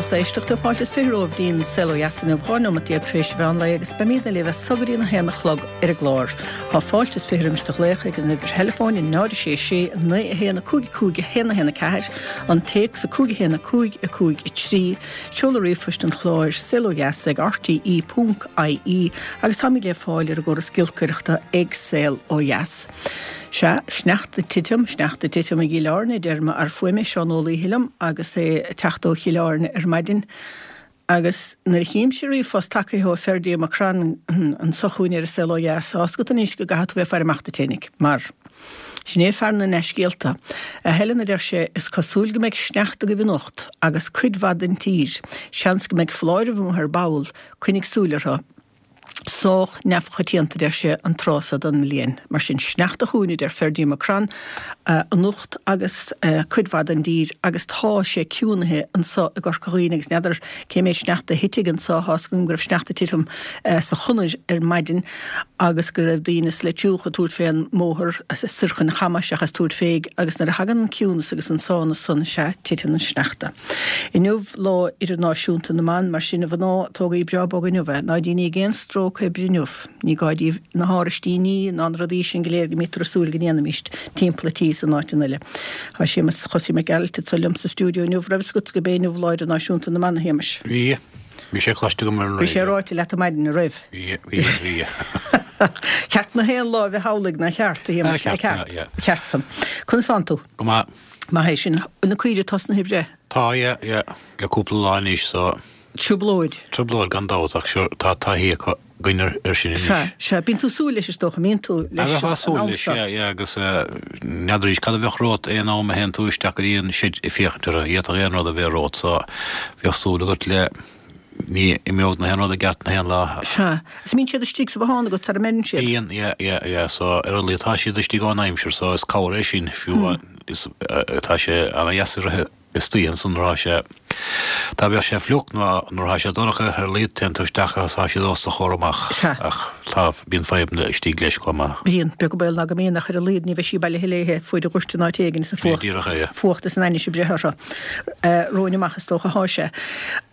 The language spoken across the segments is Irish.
lucht éisteachta, fáilte is 20 romhaibh dtí'n Saol Ó Dheas inniu, 12 nóimeat tar éis an mheán lae agus beimídne libh as so go dtí an 1 a chlog ar an gclár. Tá fáilte is 20 roimis do ghlaoch ag an uimhir theileafóin 0 6 6 9 1 5 5 1 1 4, an téacs 5 1 5 5 3, seoladh ríomhphoist an chláir, saolodheas ag rte ponc ie agus táimid le fáil ar an gcóras giolcaireachta ag Saol Ó Dheas. Sea, sneachta ag titim, sneachta ag titim i gCill Airne, a deir m'fhear fuaime, Seán Ó Laoithe liom agus é ag teacht ó Chill Airne ar maidin. Agus nuair a chímse ríomhphost tagaithe ó Ferdie Mac Crann anso chugainn ar an Saol Ó Dheas, tá fhios agat anois go gcaithfidh tú bheith ag faire amach duit fhéinig, mar sin é fear na ndea-scéalta. A Helen, a deir sé, is cosúil go mbeidh sneachta agaibh anocht, agus cuid mhaith den tír. Seans go mbeidh foláireamh amuigh ar ball, coinnigh súil orthu. Sách neamhchoitianta, a deir sé, an tráth so den mbliain. Mar sin, sneachta chugainn, a deir Ferdie Mac Crann, anocht agus cuid mhaith den dtír agus tá sé ciúnaithe anso i gCorca Dhuibhne agus n'fheadar cé méid sneachta a thitfidh anso, tá fhios agam go raibh sneachta ag titim sa Chonair ar maidin agus go raibh daoine sa Leitriúch ag tabhairt fén mbóthar soir chun Chamuis seachas tabhairt féig agus nuair a thagann an ciúnas agus an sánas san, sea, titeann an sneachta. Inniu Lá Idirnáisiúnta na mBan, mar sin a mhná, tógaigí breá bog inniu é. Ná déanaíg aon stróc oibre inniu. Ní gá daoibh na háraistíní ná na rudaí sin go léir go mbítear ag súil go ndéanfaimíst timpeall an tí is in áiteanna eile. Tá Séamus Chosaí Mac Gearailt anso liom sa stiúideo inniu. Raibh fhios agat gurb é inniu Lá Idirnáisiúnta na mBan, a Shéamais? Bhí. Bhí sé cloiste agam ar an raidió. Bhí sé ráite leat ar maidin, an raibh? Bhí, bhí, bhí. Ceart na haon lá a bheith amhlaidh, nár cheart, a Shéamais? Ceart, yeah. Ceart san. Conas tánn tú? Go maith. Maith é sin. Bhfuil na caoirigh tosnaithe ag breith? Tá, yeah, yeah. Le cúpla lá anois, so. Trioblóid. Trioblóid gan dabht, ach sure, tá taithí acu, againn ar sin anois. Sea, sea. Bíonn tú ag súil leis is dócha, mbíonn tú leis an am seo. Bheifeá ag súil leis, yeah, yeah, agus n'fheadar arís cad a bheadh romhat aon am a théann tú isteach go dtí an seid ag féachaint orthu, d'fhéadfadh aon rud a bheith romhat, so bheadh súil agat le, ní imeodh na haon rud i gceart na haon lá. Sea. Is mbíonn siad istigh sa bhothán agat sara mbeireann siad? Bíonn, yeah, yeah, yeah, so ar a laghad tá siad istigh ón aimsir so is cabhair é sin fiú is tá sé ana-dheas a rith istoíche ansan nuair atá sé, dá mbeadh sé fliuch nó nuair atá sé dorcha ar a laghad téann tú isteach agus tá siad os do chomhair amach Sea. ach tá, bíonn fadhbanna istigh leis chomh maith. Bíonn, beag an baol ná go mbíonn ach ar a laghad ní bheidh sí bailithe léithe fuaid a dhoirteadh in áit éigin is an fuacht, Díreach é, yeah. fuacht is an ainnis ag breith orthu. Romhainn amach is dócha athá sé.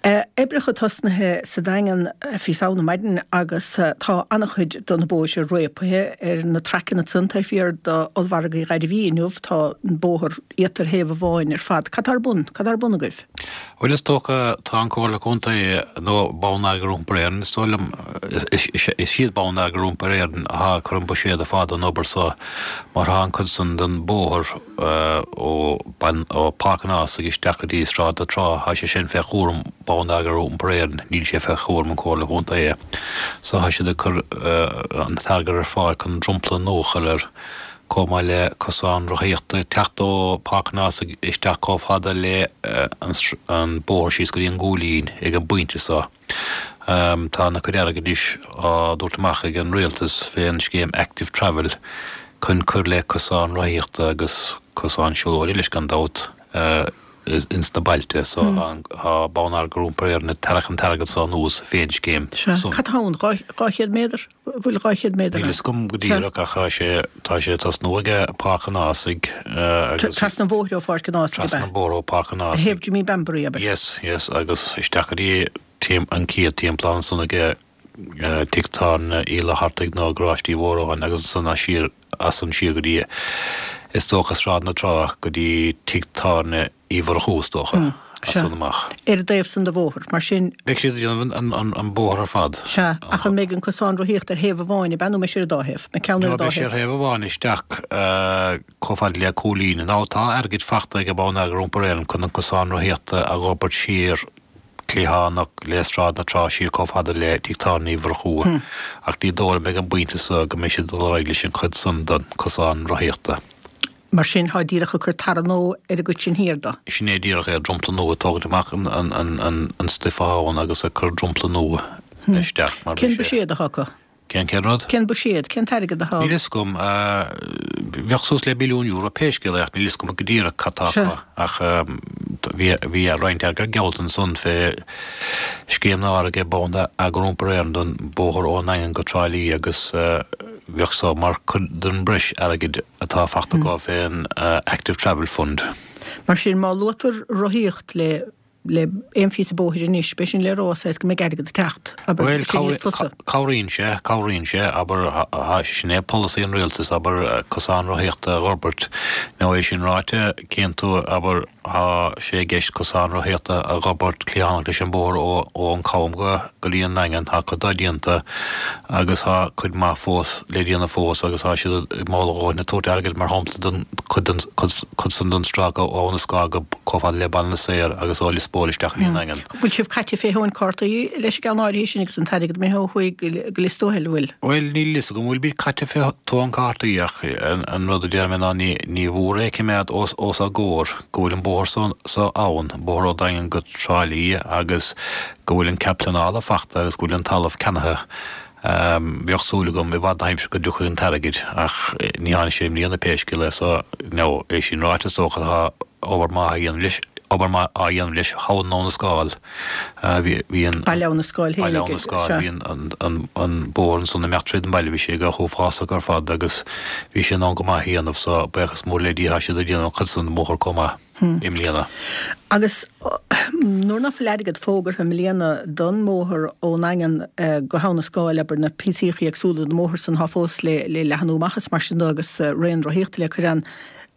Oibreacha tosnaithe sa Daingean fí Samhna maidin agus tá an-chuid de na bóithre réabtha ar na traiceanna ansan taobh thiar d'ollmhargadh Ghairbhí inniu. Tá an bóthar iata ar thaobh amháin ar fad. Cad tá ar bun? Cad tá ar bun agaibh? Bhuel is dócha tá an Comhairle Contae nó Bonneagar Iompair Éireann is dóigh liom, is iad Bonneagar Iompair Éireann athá ag cur an buiséad ar fáil don obair so mar thá an cuid san den bóthar ó Páirc an Ághasaigh isteach go dtí Sráid na Trá, thá sé sin fé chúram Bonneagar Iompair Éireann, níl sé fé chúram an Comhairle Chontae. So thá siad ag cur an t-airgead ar fáil chun dromchla nua a chur air, chomh maith le cosán rothaíochta ag teacht ó Páirc an Ághasaigh isteach chomh fada le an bóthar síos go dtí an gCúilín ag an bpointe so. Tá ana chuid airgid anois á dtabhairt amach ag an Rialtas fén scéim Active Travel chun cur le cosáin rothaíochta agus cosáin siúlóide leis gan dabht ins na bailte so tá Bonneagar Iompair Éireann ag tarrac an t-airgead so anuas fén scéim san. Cad tá ann? 200 méadar? Bhfuil 200 méadar ann? Níl fhios agam go díreach ach tá sé, tá sé ag tosnú ag Páirc an Ághasaigh agus. Trasna an bhóthair ó Pháirc an Ághasaigh ab ea? Trasna an bhóthair ó Pháirc an Ághasaigh. Thaobh Jimmy Bambury, abair. Yes, yes, agus isteach go dtí an chéad timplán ansan ag tigh tábhairne Uí Fhlaitheartaigh nó Garáiste Uí Mhóráin agus ansan as siar, as san siar go dtí, is dócha Sráid na Trá go dtí tigh tábhairne Uí Mhurchú, is dócha, as san amach. Ar an dtaobh san de bhóthar, mar sin. Beidh siad ag déanamh an bóthar ar fad. Sea, ach an mbeidh an cosán rothaíochta ar thaobh amháin, ab ea, nó mbeidh sé ar an dá thaobh? Mbeidh ceann ar an dá thaobh? Beidh sé ar thaobh amháin isteach chomh fada le Cúilín. Now tá airgead fachta ag Bonneagar Iompair Éireann chun an cosán rothaíochta a dh'fhorbairt siar cliathánach le Sráid na Trá siar chomh fada le Tigh Tábhairne Uí Mhurchú, ach ní dóigh liom ag an bpointe so go mbeidh siad ag dul ar aghaidh leis an chuid san den cosán rothaíochta. Mar sin, tá díreach ag cur tarra nua ar an gcuid sin thiar de. Sin é díreach é, dromchla nua, ag tógaint amach an stuif athá ann agus ag cur dromchla nua isteach mar Cén buiséad athá acu? Cén cén rud? Cén buiséad? Cén t-airgead athá? Níl fhios agam. Bheadh suas le billiún euro pé scéal é ach níl fhios agam go díreach cad tá acu. Ach bhí bhí roinnt airgead geallta ansan fé scéim nua ag Bonneagar Iompair Éireann don bóthar ón nDaingean go Trá Lí agus bheadh so mar chuid den breis airgid atá fachta acu fén Active Travel Fund. Mar sin, má luaitear rothaíocht le. Le aon phíosa bóthair anois, b'é sin le rá, saghas go mbeidh airgead ag teacht, abair, Bhuel, sin níos fusa. cabhraíonn sé, cabhraíonn sé, abair, sin é polasaí an rialtais, abair, cosán rothaíochta a dh'fhorbairt. Now é sin ráite, cíonn tú, abair, tá sé i gceist cosán rothaíochta a dh'fhorbairt cliathánach leis an bóthar ó, ó an Cam go, go dtí an nDaingean, tá cuid dó déanta agus tá cuid maith fós le déanamh fós agus tá siad i mall a dhóthain ag tabhairt airgid, mar shampla, don cuid den, cuid, cuid san den stráice ó Abha na Scáil go. chomh fada le Baile na Saor agus ó Lios Póil isteach go dtí an Daingean. Bhfuil sibh caite fé thóin cártaí leis an gceann áirithe sin agus an t-airgead imithe ó thuaidh go Lios Tuathail, an bhfuil? Bhuel, níl fhios agam an bhfuil muid caite fé thóin cártaí ach an rud a déarfaidh mé ná ní ní mhór é a choimeád os os ár gcomhair go bhfuil an bóthar so so ann, bóthar ó Daingean go Trá Lí agus go bhfuil an cead pleanála fachta agus go bhfuil an talamh ceannaithe. Bheadh súil agam i bhfad na haimsire go dtiocfadh an t-airgead ach ní tháinig sé i mbliana pé scéal é so now é sin ráite is dócha tá obair maith á dhéanamh leis obair maith á dhéanamh leis thall in Abha na Scáil. Bhí bhí an Baile Abha na Scáil féin Baile Abha na Scáil bhí an an an an bóthar ansan ag imeacht tríd an baile bhí sé go huafásach ar fad agus bhí sé in ann go maith a dhéanamh so buíochas mór le Dia tá siad ag déanamh an chuid san den bhóthar chomh maith. i mbliana. Agus nuair ná fuil airgead fógartha i mbliana don mbóthar ón nDaingean go hAbha na Scáil, abair, na píosaíochaí éagsúla den mbóthar san atá fós le leathnú amach is mar sin de agus raon rothaíochta le cur ann,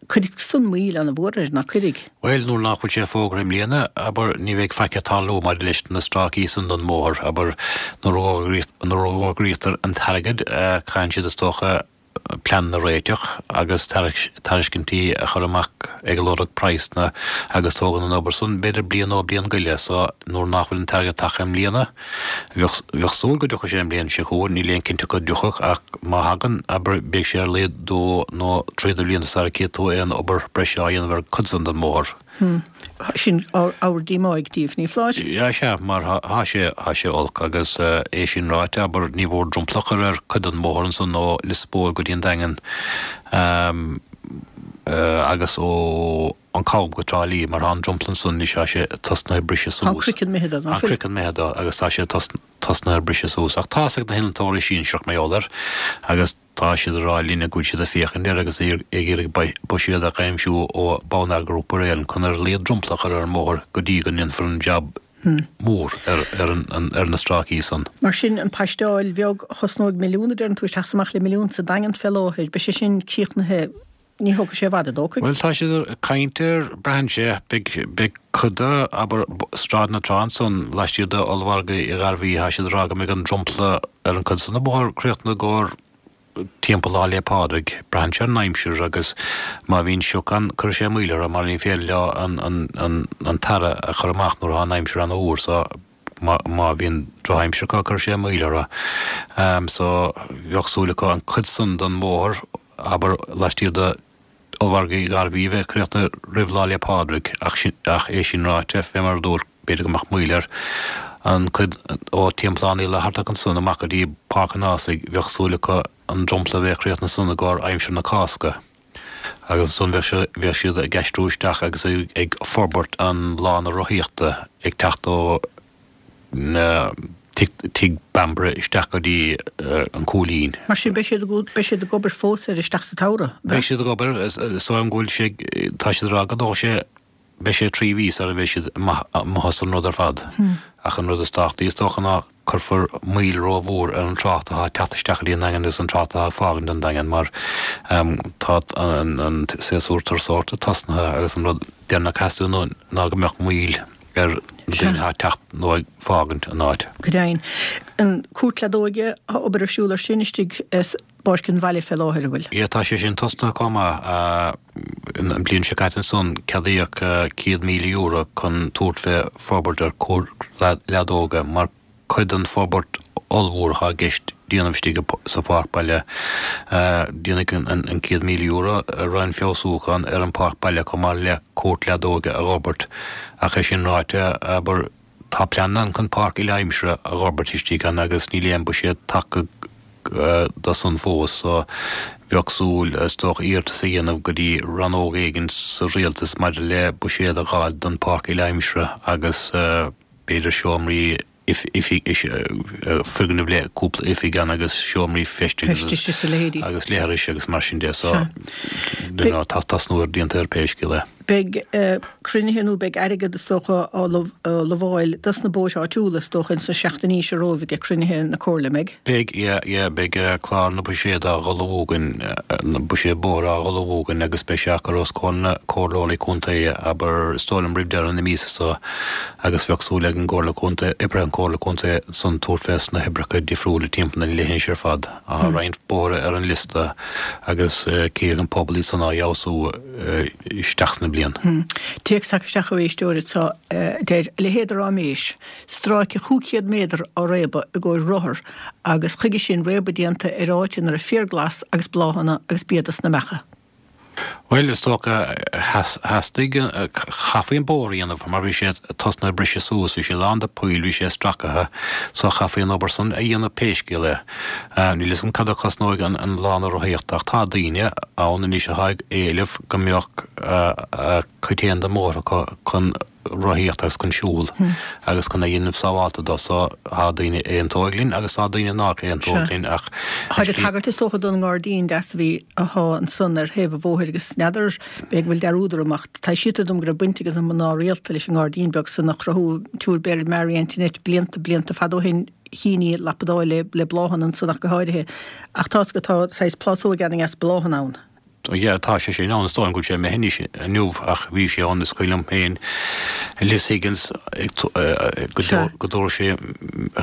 cuirfidh san moill ana-mhór air, ná cuirfidh? Bhuel, nuair nach bhfuil sé fógartha i mbliana, abair, ní bheidh faic ag tarlú maidir leis na stráicí san den mbóthar, abair, nuair a fhógraítear an t-airgead, caitheann siad is dócha, pleananna a réiteach agus tairiscintí a chur amach ag lorg praghsanna agus tógann an obair san b'fhéidir bliain nó bliain go leith so nuair nach bhfuil an t-airgead tagtha i mbliana bheadh bheadh súil go dtiocfadh sé an bhliain seo chugainn níl aon cinnteacht go dtiocfadh ach má thagann abair beidh sé ar a laghad dó nó trí de bhlianta sara gcífidh tú aon obair breise á dhéanamh ar cuid san den mbóthar. Sin ábhar díomá daoibh, ní foláir? Sea, mar thá sé, thá sé olc agus é sin ráite, abair, ní mhór dromchla a chur ar cuid den mbóthar ansan ó Lios Póil go dtí an Daingean agus ó an Cam go Trá Lí, mar thá an dromchla ansan anois, thá sé tosnaithe ag briseadh suas. Tá an craiceann imithe de, ná fuil? Tá an craiceann imithe de agus tá sé tosnaithe ag briseadh suas. Ach tá's ag na hinnealtóirí sinsearach mar gheall air agus. Tá siad ag rá linne go bhfuil siad ag féachaint air agus ag iarraidh buiséad a aimsiú ó Bonneagar Iompair Éireann chun ar a laghad dromchla a chur ar an mbóthar go dtí go ndéanfar an jab mór ar na stráicí san. Mar sin, an paisteáil bheag a chosnóidh milliún, a deireann tú, isteach is amach le milliún sa Daingean fé láthair, beidh sé sin críochnaithe, ní thógfaidh sé i bhfad, an dtógfaidh? Bhuel, tá siad ag caint air, braitheann sé, beidh cuid de, abair, Sráid na Trá ansan, laistiar de Ollmhargadh Uí Ghairbhí, tá siad ag rá go mbeidh an dromchla ar an gcuid san den bhóthar críochnaithe i gcomhair timpeall Lá 'le Pádraig. Braitheann sé ar an aimsir agus má bhíonn sioc ann cuirfidh sé moill orthu mar ní féidir leo an t-earra a chur amach nuair atá an aimsir an-fhuar so má bhíonn drochaimsir acu cuirfidh sé moill orthu. So bheadh súil acu an cuid san den bhóthar, abair, laistiar de Ollmhargadh Uí Ghairbhí a bheith críochnaithe roimh Lá 'le Pádraig ach sin, ach é sin ráite, fé mar a dúirt, b'fhéidir go mbeadh moill air. An cuid ó Teampall Uí Fhlathartaigh ansan amach go dtí Páirc an Ághasaigh, bheadh súil acu an dromchla a bheith críochnaithe ansan i gcomhair aimsir na Cásca. Agus ansan bheadh sé, bheadh siad ag aistriú isteach agus ag forbairt an lána rothaíochta ag teacht ó na Tigh Bambury isteach go dtí an Cúilín. Mar sin beidh siad ag, beidh siad ag obair fós air isteach sa tsamhradh, ab ea? Beidh siad ag obair, is dóigh liom go bhfuil sé, tá siad ag rá go dtógfaidh sé, beidh sé 3 mhí sara bheidh siad amuigh as an rud ar fad. Ach an rud is tábhachtaí is dócha ná cuirfear moill rómhór ar an trácht atá ag teacht isteach go dtí an Daingean agus an trácht atá ag fágaint an Daingean mar tá an séasúr turasóireachta tosnaithe agus an rud deireanach a theastaíonn ná go mbeadh moill ar na daoine atá ag teacht nó ag fágaint an áit. Go deimhin. An cúirt leadóige, tá obair ar siúl ar sin istigh i bPáirc an Bhaile fé láthair, an bhfuil? Yeah, tá sé sin tosnaithe chomh maith. An bliain seo caite ansan ceadaíodh €100,000 chun tabhairt fé forbairt ar chúirt leadóige mar cuid den forbairt ollmhór atá i gceist déanamh istigh sa pháirc baile. Déanfaidh an €100,000 roinnt feabhsúchán ar an pháirc baile chomh maith le cúirt leadóige a dh'fhorbairt. Ach é sin ráite, abair, tá pleananna ann chun páirc uile-aimsire a dh'fhorbairt istigh ann agus níl aon buiséad tagtha do san fós so bheadh súil, is dócha, iarratas a dhéanamh go dtí rannóg éigin sa rialtas maidir le buiséad a dh'fháil don pháirc uile-aimsire agus b'fhéidir seomraí foirgneamh le cúpla oifig ann agus seomraí feistis agus leithris agus mar sin de so tá tosnú ar déanta ar pé scéal é. Beidh cruinnithe nó beidh airgead is dócha á lamháil dos na bóithre áitiúla is dócha ins na seachtainí seo romhaibh ag cruinnithe na Comhairle, an mbeidh? Beidh, yeah, yeah, beidh clár na buiséad á ullmhú againn, na buiséad bóthair á ullmhú againn agus beidh sé á chur os comhair na comhairleoirí contae, abair, is dóigh liom roimh deireadh na míosa seo agus bheadh súil ag an gComhairle Contae, oibrithe an Chomhairle Contae san tabhairt fés na hoibreacha difriúla timpeall an leithinis ar fad. Tá roinnt bóithre ar an liosta agus cífidh an pobal iad san á fheabhsú. isteach sna bliain. Téacs tagtha isteach ó éisteoir anseo a deir, A leithéid de ráiméis! Stráice 500 méadar á réabadh i gcomhair rothar agus chuige sin réabadh déanta ar áit ina raibh féar glas agus bláthanna agus bia dos na beacha. Bhuel, is dócha, theastaigh, chaithfí an bóthar a dhéanamh mar bhí sé tosnaithe ag briseadh suas, bhí sé lán de poill, bhí sé stracaithe, so chaithfí an obair san a dhéanamh pé scéal é. Níl fhios agam cad a chosnóidh an lána rothaíochta ach tá daoine ann anois atá ag éileamh go mbeadh a cuid féin den mbóthar acu chun rothaíocht agus chun siúl agus chun a dhéanamh sábhálta dó so tá daoine a aontóidh linn agus tá daoine nách aontóidh linn ach Táid ag tagairt is dócha don ngairdín deas a bhí atá ansan ar thaobh an bhóthair agus n'fheadar b'fhéidir go bhfuil dearúd orm ach taibhsítear dom go raibh baint ag na mná rialta leis an ngairdín beag san a chruthú an tSiúr Mary Antoinette blianta blianta fada ó shin. Chinn í lapadáil le le bláthanna ansan ach go háirithe. Ach tá's agat tá saghas plásóg an-dheas bláthanna ann. Yeah tá sé sin ann, is dóigh liom go bhfuil sé imithe anois inniu ach bhí sé ann is cuimhin liom féin Liz Higgins ag go go dtabharfadh sé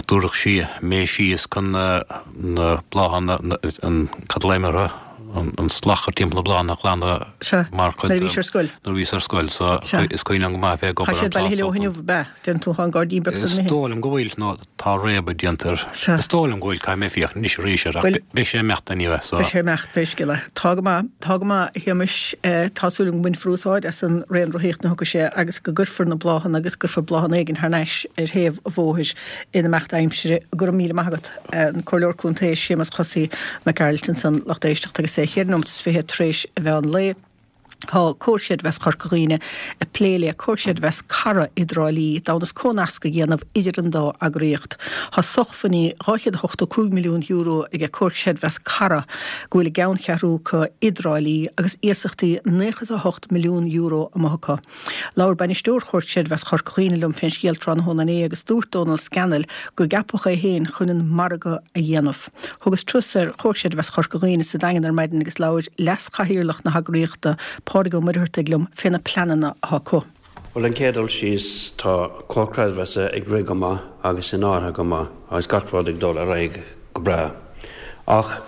dtabharfadh sí mé síos chun na na bláthanna an cad a glaoim orthu an slach timpeall na bláthanna a ghlanadh Sea, mar chuid nuair a bhís ar scoil. Nuair a bhíos ar scoil so is cuimhin liom go maith bheith ag obair ar an plásóg. Tá siad bailithe leo inniu, ab ea? Deireann tú, tá an gairdín beag san imithe. Is dóigh liom go bhfuil, nó tá réabadh déanta air. Sea. Is dóigh liom go bhfuil, caithfidh mé féachaint anois arís air, ach beidh sé imeachta anyway, so. Beidh sé imeacht, pé scéal é. Tá go maith, tá go maith, a Shéamais. Tá súil agam go mbainfear úsáid as an raon rothaíochta nuair a thiocfaidh sé agus go gcuirfear na bláthanna agus go gcuirfear bláthanna éigin thar n-ais ar thaobh an bhóthair in imeacht aimsire. Go raibh míle maith agat. An Comhairleoir Contae Séamus Chosaí Mac Gearailt ansan, lucht éisteachta agus é cheithre nóimeat is 20 tar éis an mheán lae. Tá Comhar Creidmheasa Chorca Dhuibhne ag plé le Comhar Creidmheasa Cara i dTrá Lí d'fhonn is comhnasc a dhéanamh idir an dá eagraíocht. Tá sócmhainní €285 milliún aige Comhar Creidmheasa Cara go bhfuil a gceanncheathrú acu i dTrá Lí agus iasachtaí €98 milliún amuigh acu. Labhair bainisteoir Chomhar Creidmheasa Chorca Dhuibhne liom fén scéal tráthnóna inné agus dúirt Dónal Scannell go gceapadh é féin chun an margadh a dhéanamh. Thugas turas ar Chomhar Creidmheasa Chorca Dhuibhne sa Daingean ar maidin agus labhair leas-chathaoirleach na heagraíochta, Pádraig Ó Muircheartaigh liom fé na pleananna atá acu. Bhuel, an chéad dul síos, tá Comhar Creidmheasa ag rith go maith agus in áirithe go maith agus gach rud ag dul ar aghaidh go breá. Ach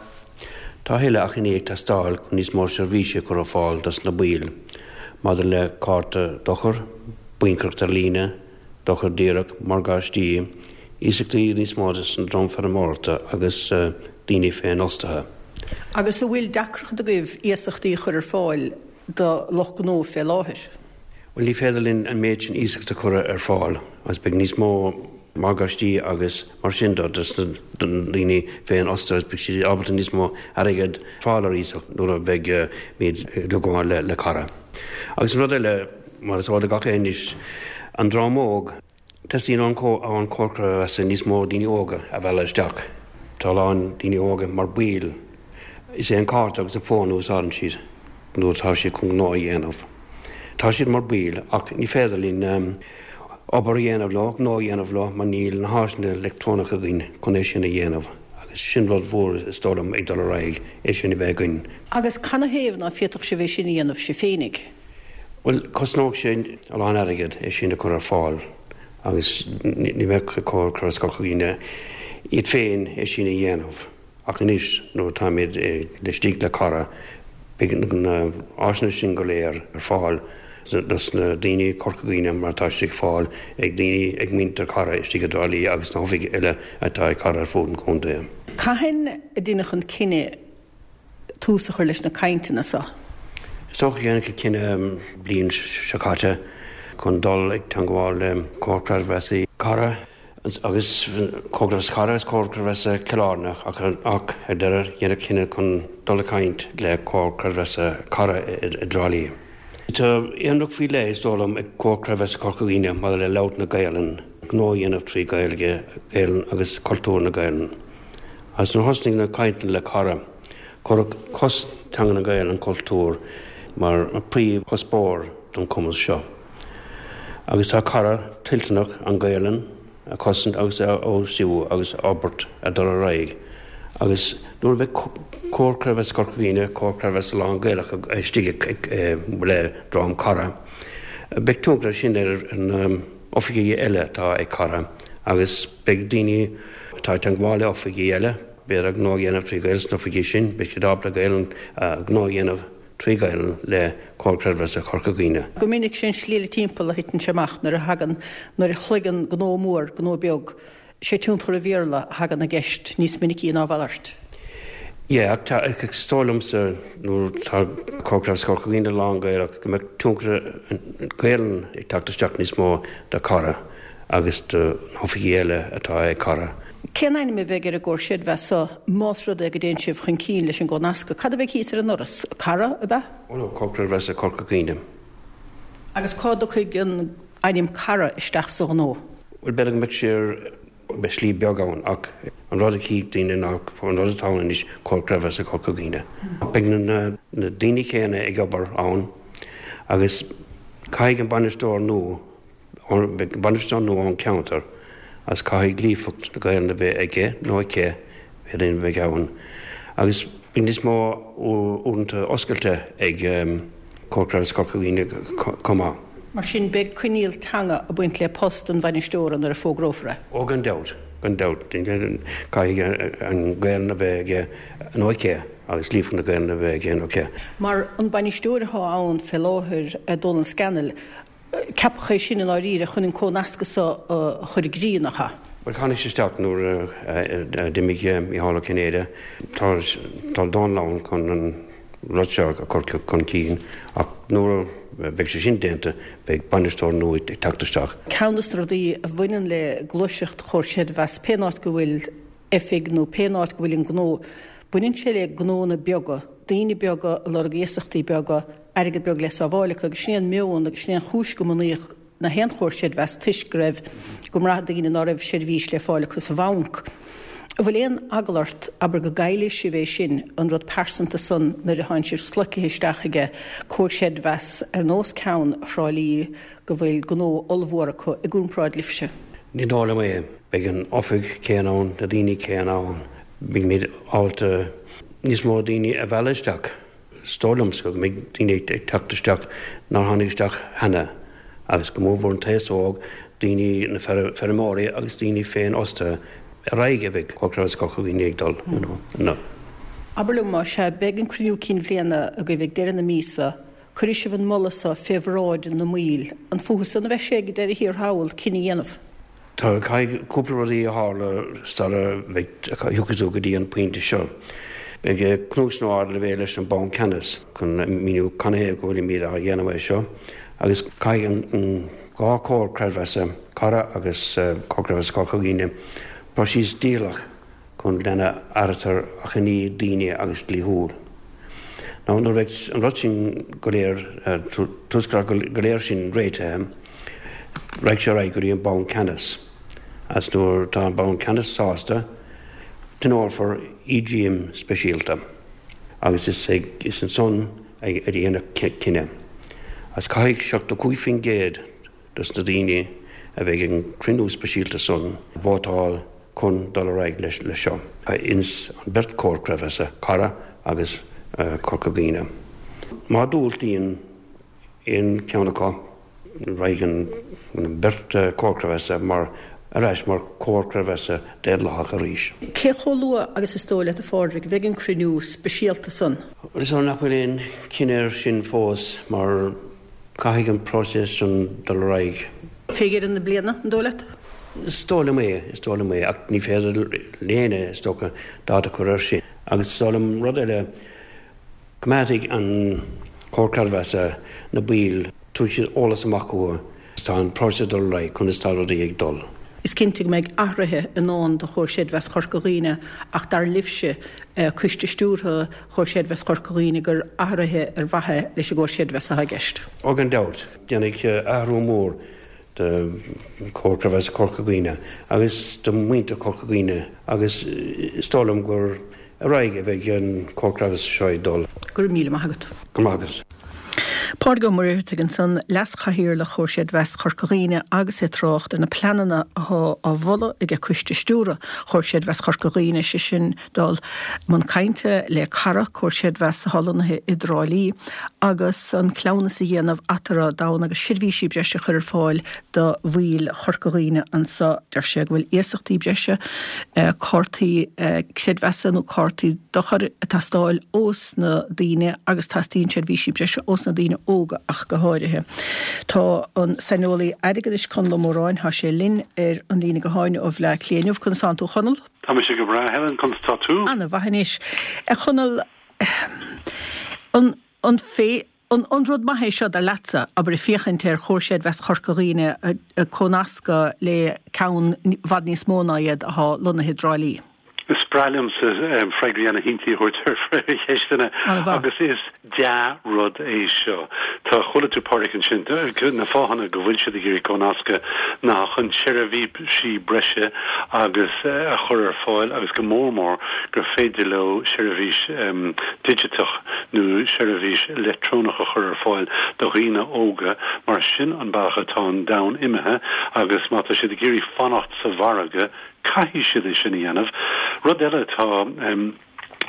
tá a thuilleadh achainí ag teastáil chun níos mó seirbhísí a chur ar fáil dos na baill maidir le cárta dochair, baincaireacht ar líne, dochar díreach, morgáistí, iasachtaí níos mó dos an dream feirmeoireachta agus daoine féinfhostaithe. Agus an bhfuil deacracht agaibh iasachtaí a chur ar fáil do lucht gnó fé láthair? Bhuel, ní féidir linn an méid sin iasacht a chur ar fáil agus beidh níos mó morgáistí agus mar sin de dos na daoine féinfhostaithe agus beidh siad ábalta níos mó airgead fáil ar iasacht nuair a bheidh muid ag gabháil le Cara. Agus an rud eile, Mar is eol do gach éinne anois, an dream óg, teastaíonn ón Comhar Creidmheasa níos mó daoine óga a mhealladh isteach. Tá a lán daoine óga mar baill. Is é an cárta agus an fón a úsáideann siad nuair atá siad chun gnó a dhéanamh. Tá siad mar baill ach ní féidir linn obair a dhéanamh leo, gnó a dhéanamh leo mar níl na háiseanna leictreonacha againn chun é sin a dhéanamh agus sin rud mhór is dóigh liom ag dul ar aghaidh, é sin a bheith againn. Agus canathaobh ná féadfadh sibh é sin a dhéanamh sibh féinig? Bhuel, cosnódh sé a lán airgid é sin a chur ar fáil agus ní bheadh Comhar Creidmheasa Chorca Dhuibhne iad féin é sin a dhéanamh. Ach anois nuair atáimid istigh le Cara, beidh na áiseanna sin go léir ar fáil dos na daoine Corca Dhuibhne mar atá siad ag fáil ag daoine, ag muintir Cara istigh i dTrá Lí agus na hoifigí eile atá ag Cara ar fud an chontae. Cathain a deineadh an cinneadh tús a chur leis na cainteanna seo. Is dócha gur deineadh an cinneadh an bhliain seo caite chun dul ag teangmháil le Comhar Creidmheasa Cara agus Comhar Creidmheasa Cara agus Comhar Creidmheasa Chill Airne ach ar deireadh deineadh cinneadh chun dul ag caint le Comhar Creidmheasa Cara i dTrá Lí. Tá aonracht faoi leith is dóigh liom ag Comhar Creidmheasa Chorca Dhuibhne maidir le labhairt na Gaelainne, gnó a dhéanamh trí Ghaeilge, Gaelainn agus cultúr na Gaelainne. Agus nuair a thosnaigh na cainteanna le Cara, cuireadh cosaint teanga na Gaelainne, an cultúr, mar príomhchuspóir. don chumas seo. Agus tá Cara toilteanach an Ghaelainn a chosaint agus a fheabhsú agus a fhorbairt a dul ar aghaidh agus nuair a bheidh Comhar Creidmheasa Chorca Dhuibhne, Comhar Creidmheasa lán-Ghaelach istigh le dream Cara, beidh tionchar sin ar na oifigí eile atá ag Cara agus beidh daoine atá ag teagmháil le oifigí eile, b'fhéidir gnó a dhéanamh trí Ghaeilge sna hoifigí sin, beidh siad ábalta Gaelainn gnó a dhéanamh trí Ghaelainn le Comhar Creidmheasa Chorca Dhuibhne. Go minic sé an slí eile timpeall a thiteann sé amach nuair a thagann, nuair a shloigeann gnó mór gnó beag, sé tionchar an Bhéarla a thagann i gceist níos minicí ná a mhalairt. Yeah, ach tá, is dóigh liomsa nuair atá Comhar Creidmheasa Chorca Dhuibhne lán-Ghaelach go mbeadh tionchar an Ghaelainn ag teacht isteach níos mó do Cara agus do na hoifigí eile atá ag Cara. Cén ainm a bheidh ar an gcomhar creidmheasa so más rud é go dtéann sibh chun cinn leis an gcónascadh? Cad a bheidh thíos ar an ndoras? Cara, ab ea? Oh no, Comhar Creidmheasa Chorca Dhuibhne. Agus cá dtiocfaidh an ainm Cara isteach sa ghnó? Bhuel, b'fhéidir go mbeadh sé ar, beidh slí beag ann ach an rud a chífidh daoine ná an rud atá ann anois, Comhar Creidmheasa Chorca Dhuibhne. Beidh na daoine céanna ag obair ann agus caithfidh an bainisteoir nua, Beidh bainisteoir nua ón cheantar agus caithfidh líofacht na Gaelainne a bheith aige nó aici, pé duine a bheidh ann, agus beidh níos mó uaireanta oscailte ag Comhar Creidmheasa Chorca Dhuibhne chomh maith. Mar sin, beidh coinníoll teanga ag baint le post an bhainisteora nuair a fógrófar é. Ó gan dabht, gan dabht. Caithfidh an Ghaelainn a bheith aige nó aici agus líofacht na Gaelainne a bheith aige nó aici. Mar an bainisteoir atá ann fé láthair, Dónal Scannell, Ceapadh é sin i ndáiríre chun an cónascadh so a chur i gcrích, nach ea? Bhuel, tháinig sé isteach nuair a d'imigh Mícheál Ó Cinnéide. Tá tá Dónal ann chun an rud seo a chur chun cinn ach nuair a bheidh sé sin déanta beidh bainisteoir nua ag teacht isteach. Ceann de na rudaí a bhaineann le gluaiseacht Chomhar Creidmheasa, pé áit go bhfuil oifig nó pé áit go bhfuil an gnó, baineann sé le gnóanna beaga, daoine beaga ag lorg iasachtaí beaga, airgead beag le sábháil acu agus sin é an meon agus sin é an chúis go mbunaíodh na haon chomhar creidmheasa toisc go raibh, go mbraith daoine ná raibh seirbhís le fáil acu sa bhanc. An bhfuil aon eagla ort, abair, go gcaillfidh sibh é sin, an rud pearsanta san nuair atánn sibh sloicthe isteach aige comhar creidmheasa ar nós ceann Thrá Lí go bhfuil gnó ollmhór acu i gcomparáid libhse? Ní dóigh liom é. Beidh an oifig céanna ann, na daoine céanna ann. Beimid ábalta níos mó daoine a mhealladh isteach. Is dóigh liomsa go mbeidh daoine ag teacht isteach nár tháinig isteach cheana, agus go mórmhór an t-aos óg, daoine, na feirmeoirí agus daoine féinfhostaithe, ar aghaidh a bheidh Comhar Creidmheasa Chorca Dhuibhne ag dul, you know. Abair liom, más ea, beidh an cruinniú cinn bhliana agaibh ag deireadh na míosa, cuirfidh sibh an moladh so fé bhráid na mbaill, an fúthu san a bheidh sé ag deireadh thiar thall cinneadh a dhéanamh? Tá, caithfidh cúpla rudaí a tharla sara mbeidh, thiocfaidh tú go dtí an pointe seo. Beidh cnuasú ardleibhéil leis an Banc Ceannais chun míniú canathaobh go bhfuilimid á dhéanamh é seo agus caithfidh an dá chomhar creidmheasa, Cara agus Comhar Creidmheasa Chorca Dhuibhne, próiseas dícheallach chun lena n-áirítear achainí daoine agus dlíthiúil. Now nuair a bheidh an rud sin go léir, tuarascáil go léir sin réitithe, raghaidh sé ar aghaidh go dtí an Banc Ceannais agus nuair atá an Banc Ceannais sásta, tionólfar EGM speisialta agus is ag, is ansan a dhéanfar cinneadh. Agus caithfidh 75% dos na daoine a bheidh ag an cruinniú speisialta san vótáil chun dul ar aghaidh leis seo ins an beirt chomhar creidmheasa, Cara agus Corca Dhuibhne. Má diúltaíonn aon cheann acu, raghaidh an beirt chomhar creidmheasa mar ar ais mar chomhar creidmheasa daonlathach arís. Cé chomh luath agus is dóigh leat, a Phádraig, a bheidh an cruinniú speisialta san? Is dóigh nach bhfuil aon chinneadh air sin fós mar Caithfidh an próiseas sin dul ar aghaidh. Fé dheireadh na bliana, an dóigh leat? Is dóigh liom é, is dóigh liom é, ach ní féidir le héinne, is dócha, dáta a chur air sin. Agus is dóigh liom rud eile, coimeádfaidh an Comhar Creidmheasa na baill, tabharfaidh siad eolas amach chucu, tá an próiseas ag dul ar aghaidh, conas tá rudaí ag dul. Is cinnte go mbeidh athruithe i ndán do Chomhar Creidmheasa Chorca Dhuibhne ach dar libhse, Coiste Stiúrtha Chomhar Creidmheasa Chorca Dhuibhne, gur athruithe ar mhaithe leis an gComhar Creidmheasa atá i gceist. Ó gan dabht, déanfaidh athrú mór do Chomhar Creidmheasa Chorca Dhuibhne agus do mhuintir Chorca Dhuibhne agus is dóigh liom gur ar aghaidh a bheidh an Comhar Creidmheasa seo ag dul. Go raibh míle maith agat. Go raibh maith agat. Pádraig Ó Muircheartaigh ansan, Leas-Chathaoirleach Chomhar Creidmheasa Chorca Dhuibhne agus é ag trácht ar na pleananna athá á mholadh aige Coiste Stiúrtha Chomhar Creidmheasa Chorca Dhuibhne, sé sin dul i mbun cainte le Cara, Comhar Creidmheasa athá lonnaithe i dTrá Lí, agus an cleamhnas a dhéanamh eatarthu d'fhonn agus seirbhísí breise a chur ar fáil do bhaill Chorca Dhuibhne anso. Deir sé go bhfuil iasachtaí breise, cártaí creidmheasa nó cártaí dochair ag teastáil ós na daoine agus teastaíonn seirbhísí breise ós na daoine óga ach go háirithe. Tá an saineolaí airgeadais Conall Ó Móráin, tá sé linn ar an líne gutháin ó Bhleá Cliath inniu. Conas tánn tú a Chonaill? Tá mise go breá, Helen, conas tá tú? Ana mhaith anois. A Chonaill, an, an fé, an, an rud maith é seo dar leatsa, abair, ag féachaint ar Chomhar Creidmheasa Chorca Dhuibhne ag comhnascadh le ceann i bhfad níos mó ná iad athá lonnaithe i dTrá Lí? Is breá liomsa freagraí ana-shimplí a thabhairt ar cheisteanna agus is dea-rud é seo. Tá, chuala tú Pádraic ansin, na fáthanna go bhfuil siad ag iarraidh comhnascadh ná chun seirbhísí breise agus a chur ar fáil agus go mór mór gur féidir leo seirbhís digiteach nó seirbhís leictreonach a chur ar fáil do dhaoine óga mar sin an bealach atá an domhan imithe agus má tá siad ag iarraidh fanacht sa mhargadh caithfidh siad é sin a dhéanamh. Rud eile atá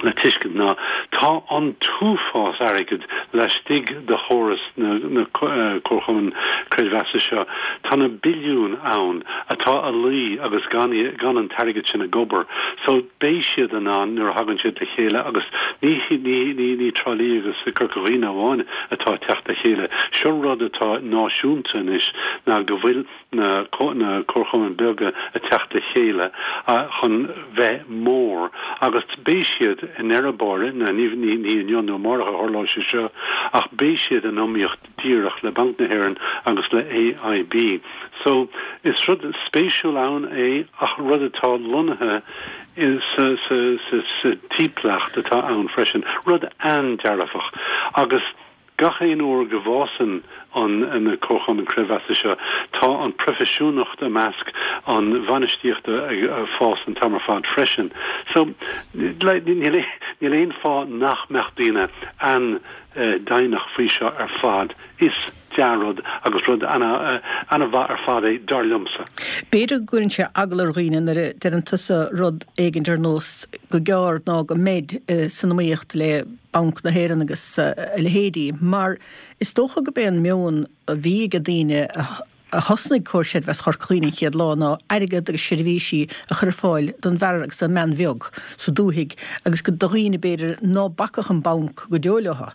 le tuiscint ná tá an t-uafás airgid laistigh de chóras na comharchumann creidmheasa seo. Tá na billiúin ann atá a luí agus gan gan an t-airgead sin ag obair. So beidh siad in ann nuair a thagann siad le chéile agus ní ní ní ní Trá Lí agus Corca Dhuibhne amháin atá ag teacht le chéile. Seo rud atá náisiúnta anois ná go bhfuil na comharchumainn beaga ag teacht le chéile chun bheith mór agus beidh siad i ndeireadh báire, ní inniu nó amárach a tharlóidh sé seo, ach beidh siad in iomaíocht díreach le Banc na hÉireann agus le AIB. So, is rud spéisiúil ann é ach rud atá lonnaithe sa timpeallacht atá ann freisin, rud an-dearfach agus. Gach aon uair go bhfásann an na comharchumainn creidmheasa seo, tá an proifisiúnacht i measc an bhainistíochta ag fás an t-am ar fad freisin. So, níl níl aon fáth nach mbeadh daoine an-deimhneach faoi seo ar fad. Is dea-rud agus rud ana-mhaith ar fad é, dar liomsa. B'fhéidir go gcuireann sé eagla ar dhaoine nuair a deireann tusa rud éigint ar nós go gearr ná go mbeid san iomaíocht le Banc na hÉireann agus a leithéidí, mar is dócha gurb é an meon a bhí ag daoine a thosnaigh Comhar Creidmheasa Chorca Dhuibhne an chéad lá ná airgead agus seirbhísí a chur ar fáil don bhfear agus don mbean bheag sa dúthaigh agus do dhaoine b'fhéidir ná bacfadh an banc go deo leo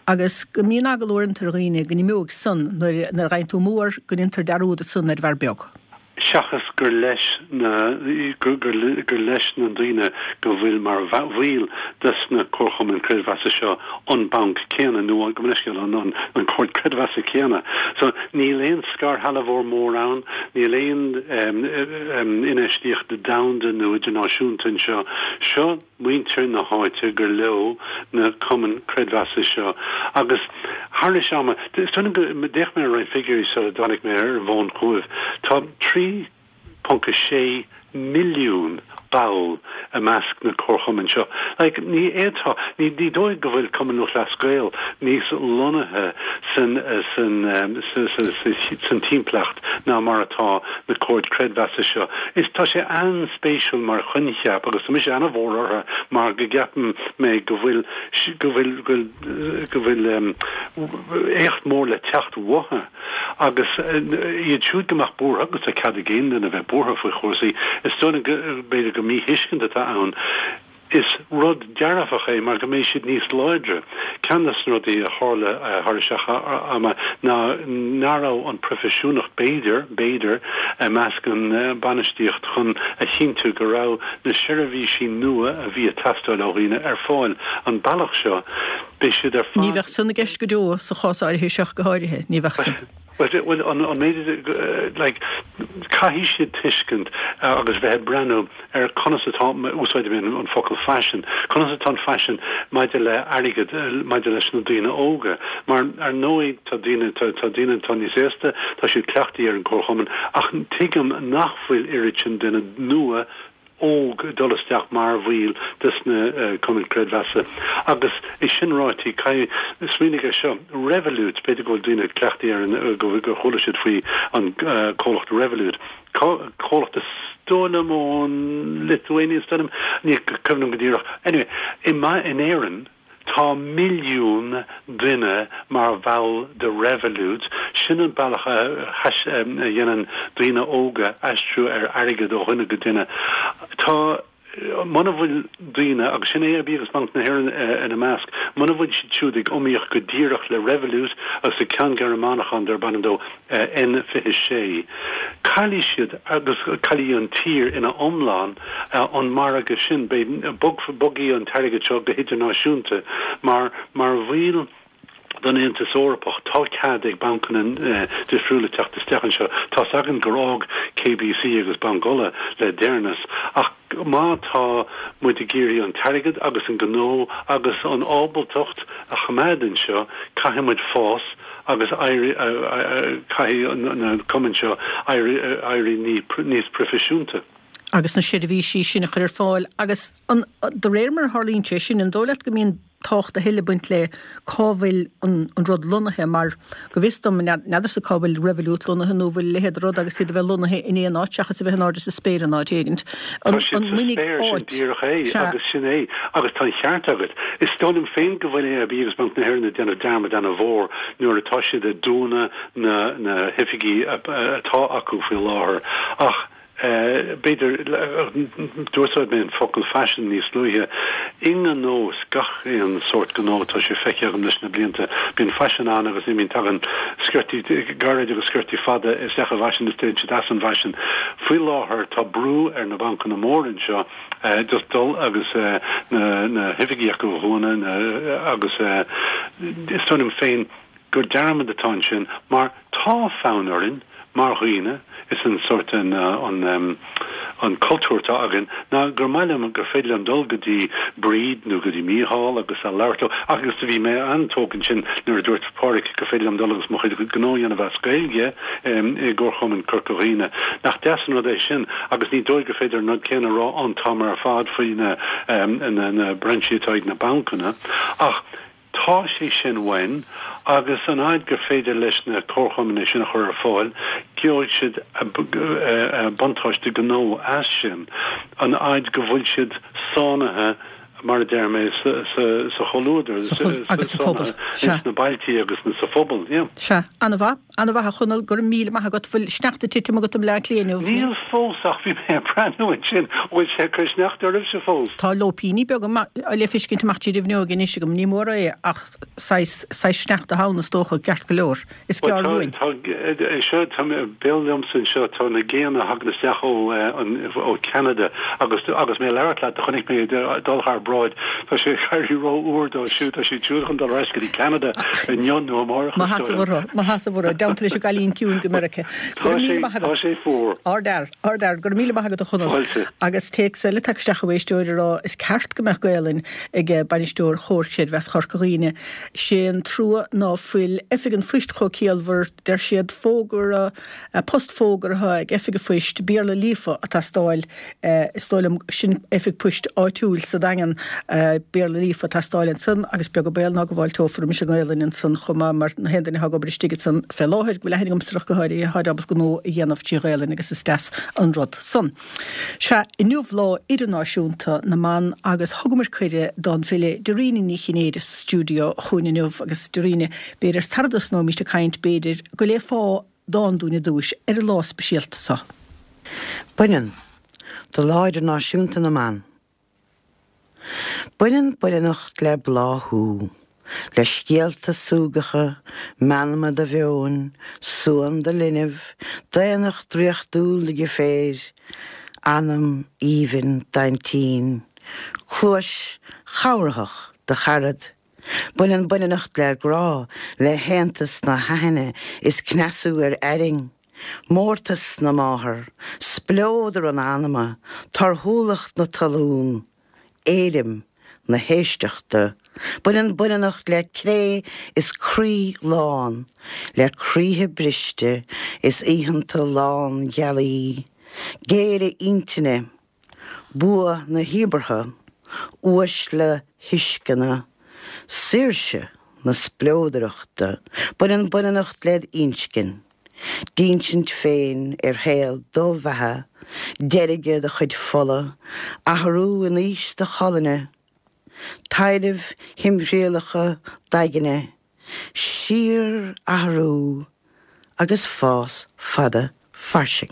agus go mbíonn eagla uaireanta ar dhaoine go n-imeoidh san nuair a gheibheann tú mór go ndéantar dearúd ansan ar an bhfear beag. seachas gur leis na gur leis na daoine go bhfuil mar bhaill des na comharchumainn creidmheasa seo an banc céanna nó gabh mo leithscéal an an comhar creidmheasa céanna. So níl aon scairshealbhóir mór ann, níl aon infheistíocht domhanda nó idirnáisiúnta anseo. Seo muintir na háite gur leo na cumainn creidmheasa seo agus thar ama, is dóigh liom go, d'fhéach mé ar roinnt figiúirí sula dtáinig mé ar an bhfón chugaibh, tá 3.6 milliún ball i measc na comharchumainn seo. Like, ní fhéadfá, ní, ní dóigh go bhfuil Cumann Lúthchleas Gael níos lonnaithe san, san, sa, sa, sa, san timpeallacht ná mar atá na comhair creidmheasa seo. Is tá sé an-spéisiúil mar choincheap agus tá mise ana-mhór orthu mar go gceapann mé go bhfuil go bhfuil go go bhfuil éacht mór le teacht uathu agus iad siúd go mbeadh buartha agus tá cead ag aon duine bheith buartha faoi chúrsaí is dóigh liom go b'fhéidir gur míthuiscint atá ann. Is rud dearfach é mar go mbeidh siad níos láidre. Ceann de na rudaí a tharla thar isteach ama ná nach raibh an proifisiúnacht, b'fhéidir, b'fhéidir, i measc an bainistíocht chun a chinntiú go raibh na seirbhísí nua a bhí ag teastáil ó dhaoine ar fáil. An bealach seo, beidh siad ar Ní fad. bheadh san i gceist go deo, sa chás áirithe seo go háirithe, ní bheadh san. Bhuel, an méid, like, caithfidh siad tuiscint agus bheith ag breathnú ar conas atá, úsáidfidh mé an focal faisean, conas atá an faisean maidir le airgead, maidir leis na daoine óga. Mar, ar ndóigh, tá daoine, tá daoine atá níos aosta, tá siad cleachtaithe ar an gcomharchumann, ach tuigim nach bhfuil oiread sin duine nua. óg ag dul isteach mar bhaill des na cumainn creidmheasa. Agus é sin ráite, caithfidh, smaoinigh ar seo, Revolut, b'fhéidir go bhfuil daoine cleachtaithe ar an, gur chuala siad faoi an comhlacht Revolut, comhlacht is dóigh liom ón Lithuania, is dóigh liom, ní cuimhin liom go díreach. Anyway, i, in Éirinn, Tá milliún duine mar bhall de Revolut, sin an bealach a dhéanann daoine óga aistriú ar airgead ó dhuine go duine. Tá, muna bhfuil daoine, agus sin AIB agus Banc na hÉireann ina measc, muna bhfuil siad siúd ag iomaíocht go díreach le Revolut agus le ceann Gearmánach ann darb ainm dó N26. Caillfidh siad, agus caillfidh an tír ina iomlán, an margadh sin. Beidh, bogfaidh an t-airgead seo go hidirnáisiúnta mar, mar bhaill den Aontas Eorpach, tá cead ag bancanna difriúla teacht isteach anseo. Tá's againn gur fhág KBC agus Banc Uladh le deireanas, ach má tá muid ag iarraidh an t-airgead agus an gnó agus an ábaltacht a choimeád anseo, caithfidh muid fás agus éirí, caithfidh na cumainn seo éirí níos proifisiúnta. agus na seirbhísí sin a chur ar fáil agus an, de réir mar a tharlaíonn sé sin, an dóigh leat go mbíonn tábhacht a thuilleadh ag baint le cá bhfuil an rud lonnaithe mar, go bhfios dom, n'fheadarsa cá bhfuil Revolut lonnaithe nó an bhfuil a leithéid de rud agus iad a bheith lonnaithe in aon áit seachas a bheith in airde sa spéir in áit éigint. Tá siad sa spéir, sin díreach é agus sin é agus tá an cheart agat. Is dóigh liom féin go bhfuil AIB agus Banc na hÉireann ag déanamh dearmad ana-mhór nuair atá siad ag dúnadh na na hoifigí atá acu faoi láthair ach b'fhéidir, d'úsáid mé an focal faisean níos luaithe. I ngnó, is gach aon sórt gnó, tá sé feicthe agam leis na blianta, bíonn faisean ann agus imíonn, tagann sciortaí gairid agus sciortaí fada isteach i bhfaisean is téann siad as an bhfaisean. Faoi láthair tá brú ar na bancanna móra anseo just dul agus na hoifigí acu a dhúnadh agus is dóigh liom féin gur dearmad atá ansin mar tá fonn orainn mar dhaoine, is an sórt an an cultúr atá againn ná gur maith liom gur féidir liom dul go dtí Bríd nó go dtí Mícheál agus a labhairt leo agus do bhí mé an-tógtha ansin nuair a dúirt Pádraic gur féidir liom dul agus mo chuid gnó a dhéanamh as Gaeilge i gComharchumann Corca Dhuibhne. Nach deas an rud é sin agus ní dóigh gur féidir an rud céanna a rá an t-am ar fad faoi na na brainsí atá ag na bancanna ach Tá sé sin uainn agus an fhaid gur féidir leis na comharchumainn é sin a chur ar fáil, gheobhaidh siad buntáiste gnó as sin, an fhaid go bhfuil siad sáinnithe, mar a deir mé, sa chomhluadar, agus sa phobal. Ins na bailtí agus sa phobal, yeah. Sea. An-mhaith. An-mhaith a Chonaill, go raibh míle maith agat. Bhfuil sneachta ag titim agat i mBleá Cliath inniu? Níl fós ach bhí mé ag breathnú ansin, an bhfuil sé ag cur sneachta oraibhse fós? Tá lóipíní beaga le feiscint amach tríd an bhfuinneog anois agam, ní mór é ach saghas, saghas sneachta ann is dócha, ceart go leor. Is gearr uainn. Tá, seo, tá mé, béal liomsa anseo, tá na géanna a thagann isteach ó, ó Cheanada agus, agus mé ag labhairt leat do chonaic mé iad ag dul thar bráid, tá sé ag éirí ró-fhuar dóibh siúd, tá siad siúd chun dul ar ais go dtí Ceanada inniu nó amárach is dóigh liom. Maith as a Mhuire, i dteannta leis an gcailín ciúin go Meiriceá. Go raibh míle maith agat. Tá sé fuar. Ardfhear, ardfhear. Go raibh míle maith agat a Chonaill. Fáilte. Agus téacs eile tagtha isteach ó éisteoir ag rá is ceart go mbeadh Gaelainn ag bainisteoir Chomhar Creidmheasa Chorca Dhuibhne. Sé an trua ná fuil Oifig an Phoist chomh ciallmhar, deir siad, fógra, post fógartha ag Oifig an Phoist, Béarla líofa ag teastáil. Is dóigh liom, sin oifig poist áitiúil sa Daingean, Béarla líofa ag teastáil ansan agus beag an baol ná go bhfáilteofar roimis an nGaelainn ansan chomh maith mar na haon duine atá ag obair istigh ansan fé láthair, go bhfuil aithne agamsa ach go háirithe, táid ábalta gnó a dhéanamh trí Ghaelainn agus is deas an rud san. Sea, inniu Lá Idirnáisiúnta na mBan agus thugamar cuireadh don bhfile Dairena Ní Chinnéide sa stiúideo chugainn inniu agus Dairena, b'fhéidir sara dtosnóimís ag caint, b'fhéidir go léifeá dán dúinn ar dtúis ar an lá speisialta seo. Baineann, do Lá Idirnáisiúnta na mBan. Baineann baineannacht le bláthú, le scéalta súgacha, meanma do mheoin, suan do linbh, daonnacht draíochtúil do dheirféar, anam aoibhinn d'aintín, cluais chabhraitheach do charad. Baineann baineannacht le grá, le haontas na haithne is cneasú ar airinn, mórtas na máthar, spleodar an anama, torthúlacht na talún, éirim na héisteachta. Baineann baineannacht le cré is croí lán, le croíthe briste is oícheanta lán-ghealaí, géire intinne. Bua na híobartha, uaisle thuisceana, saoirse na spleodrachta, baineann baineannacht led inscinn, d'insint féin ar shaol do bheatha, deirge do chuid fola, athrú in aois do cholainne, taidhrimh thimthriallacha d'aigne, síorathrú agus fás fada fairsing.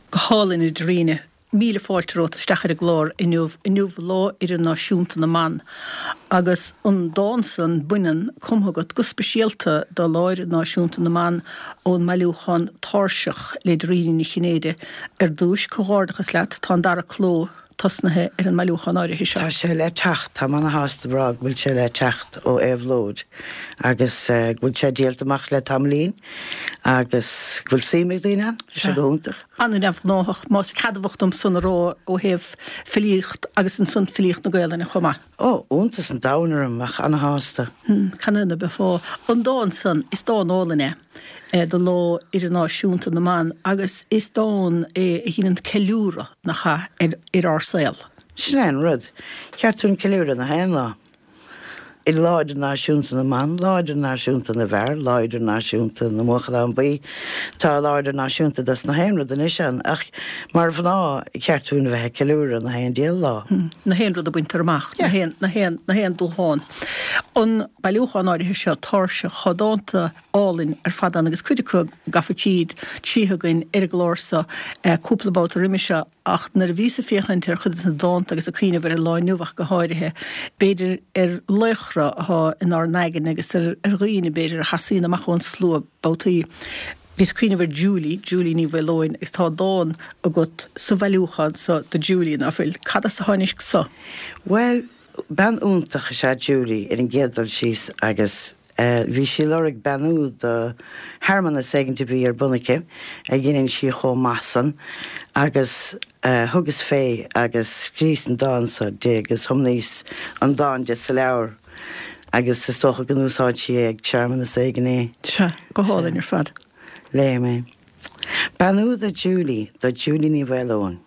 Go hálainn, a Dairena. Míle fáilte romhat isteach ar an gclár inniu, inniu Lá Idirnáisiúnta na mBan, agus an dán san, Baineann, cumtha agat go speisialta do Lá Idirnáisiúnta na mBan ón mbailiúchán Tairseach le Dairena Ní Chinnéide. Ar dtúis, comhghairdeachas leat, tá an dara cló tosnaithe ar an mbailiúchán áirithe seo. Tá sé le teacht, táim ana-shásta a rá go bhfuil sé le teacht ó Éabhlóid agus go bhfuil sé díolta amach le tamaillín agus go bhfuil suim ag daoine ann, tá sé go hiontach. An-neamhghnáthach, más ceadmhach dom san a rá ó thaobh filíocht agus ansan filíocht na Gaelainne chomh maith. Ó, iontas an domhain orm, ach ana-shásta. Canathaobh ná beifeá? An dán san, is dán álainn é do Lá Idirnáisiúnta na mBan agus is dán é a dheineann ceiliúradh, nach ea, ar ar ár saol. Sin é an rud. Cheart dúinn ceiliúradh na haon lá. Lá Idirnáisiúnta na mBan, Lá Idirnáisiúnta na bhFear, Lá Idirnáisiúnta na mBuachallán Buí. Tá Lá Idirnáisiúnta dos na haon rud anois ann, ach mar mhná, cheart dúinn a bheith ag ceiliúradh na haon diabhal lá. Na haon rud a baintear amach, na haon, na haon, na haon dúshlán. An bailiúchán áirithe seo, Tairseach, tá dánta álainn ar fad ann agus cuid acu gafa tríd, tríothu againn ar an gclár seo cúpla babhta roimhe seo. Ach nuair a bhíos ag féachaint ar chuid de na dánta agus ag cuimhneamh ar an lá inniu ach go háirithe, b'fhéidir ar laochra atá inár n-aigne agus ar dhaoine, b'fhéidir, a sheasaíonn amach ón slua babhtaí, bhíos ag cuimhneamh ar Julie, Julie Ní Mhaoileoin, agus tá dán agat sa bhailiúchán so do Julie, ná fuil? Cad as a tháinig so? Bhuel, bean iontach is ea Julie ar an gcéad dul síos agus Bhí sí ag lorg beannú do shearmanas éigint a bhí ar bun aici, a dheineann sí chomh maith san, agus thugas fé agus scríos an dán so di agus thiomnaíos an dán di sa leabhar agus is dócha go n-úsáid sí é ag searmanas éigin é. Sea, go hálainn ar fad. Léigh mé. Beannú do Julie, do Julie Ní Mhaoileoin.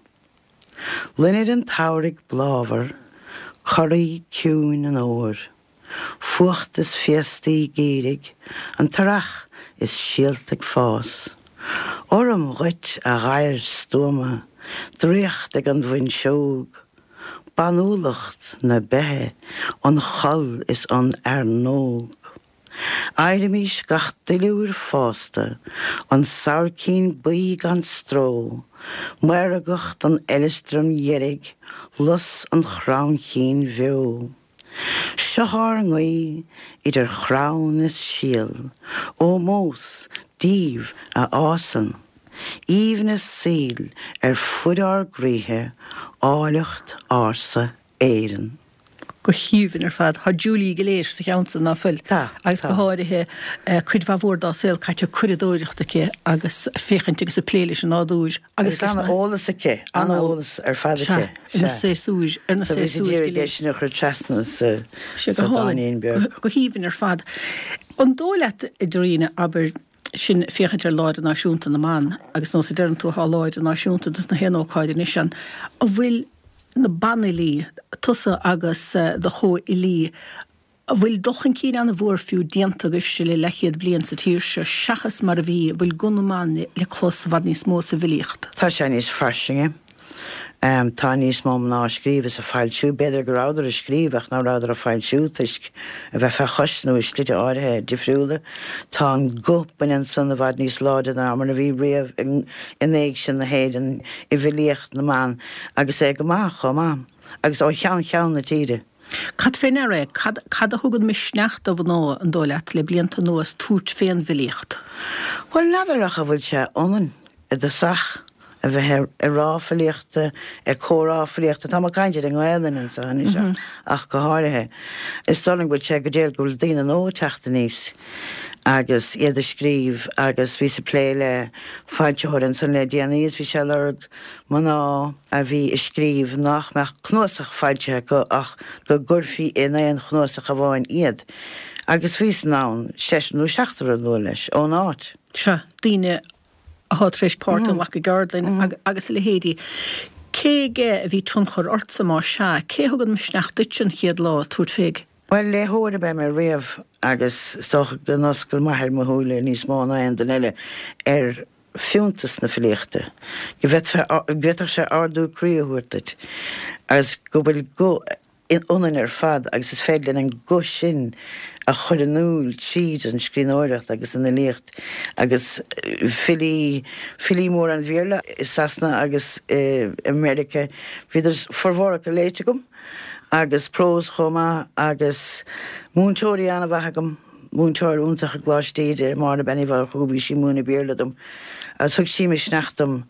Loinnir an tsamhraidh bláthmhar, corraí ciúin an fhómhair. Fuacht is féastaí geimhridh, an t-earrach is síolta ag fás. Urraim dhuit, a ghadhair stuama, draíocht ag an bhfuinseog. Banúlacht na beithe, an choll is an fhearnóg. Adhraimís gach duilliúr fásta, an sabhaircín buí gan stró, maorgacht an fheileastraim dheirg, lus an chromchinn bheo. Seo ár nguí idir chrann is síol, ómós daoibh a fhásann aoibhneas saoil ar fuid ár gcroíthe, áilleacht ársa Éireann. Go haoibhinn ar fad. Tá Julie go léir sa cheann san, ná fuil? Tá, Agus go tá. háirithe cuid mhaith mhór dá saol caite ag curadóireacht aici agus ag féachaint agus ag plé leis an nádúr agus leis na. Agus an-eolas aici, an-eolas ar fad aici. Sea. Ar na séasúir, ar na So bhíos ag séasúir go iarraidh é léir. sin a chur trasna sa Sea, sa go hálainn, dáinín beag. go haoibhinn ar fad. An dóigh leat, a Dairena, abair, sinn ag féachaint ar Lá Idirnáisiúnta na mBan, agus nós a deireann tú, tá Lá Idirnáisiúnta dos na haon ócáid anois ann, an bhfuil na banfhilí, tusa agus do chomhfhilí, An bhfuil dul chun cinn an-mhór fiú déanta agaibhse le leathchéad bliain sa tír seo seachas mar a bhí, an bhfuil guth na mban le clos i bhfad níos mó sa bhfilíocht? Tá sé níos fairsinge. Tá níos mó mná ag scríobh is ag foilsiú. B'fhéidir go rabhadar ag scríobh ach ná rabhadar ag foilsiú toisc a bheith fé chois nó i slite áirithe difriúla. Tá an guth baineann san i bhfad níos láidre ná mar a bhí riamh in éigse na hÉireann i bhfilíocht na mban agus é go maith chomh maith agus ó cheann ceann na tíre. Cad fé ndeara é? Cad, cad a thugann misneach do mhná, an dóigh leat, le blianta anuas, tabhairt fén bhfilíocht? Bhuel, n'fheadar ach an bhfuil sé ionainn i dtosach a bheith ag rá filíochta, ag comhrá filíochta, tá mé ag caint ar an nGaelainn anseo anois ach go háirithe. Is dóigh liom go bhfuil sé go diail go bhfuil daoine nua ag teacht aníos agus iad ag scríobh agus bhíos ag plé le foilsitheoir ansan le déanaí is bhí sé ag lorg mná a bhí ag scríobh nach mbeadh cnuasach foilsithe acu ach go gcuirfí in aon chnuasach amháin iad, agus bhíos in ann seisear nó seachtar a lua leis, ón áit. Sea, daoine atá tar éis páirt a ghlacadh i gceardlainn agus a leithéidí. Cé aige a bhí tionchar ortsa, más ea? Cé a thug an misneach duitse an chéad lá tabhairt fé? Bhuel, léitheoir ab ea mé riamh agus is dócha go n-oscail m'athair mo shúile níos mó ná aon duine eile ar fiúntas na filíochta, go bhféadfadh sé ardú croí a thabhairt duit agus go bhfuil guth ionainn ar fad agus is féidir linn an guth sin a chur in iúl tríd an scríbhneoireacht agus an fhilíocht agus filí, filí móra an Bhéarla i Sasana agus i Meiriceá, bhíodar formhór acu léite agam agus prós chomh maith agus múinteoirí an-mhaith agam, múinteoir iontach i gColáiste Íde, Máire Bean Uí Mhurchú, bhí sí ag múineadh Béarla dom agus thug sí misneach dom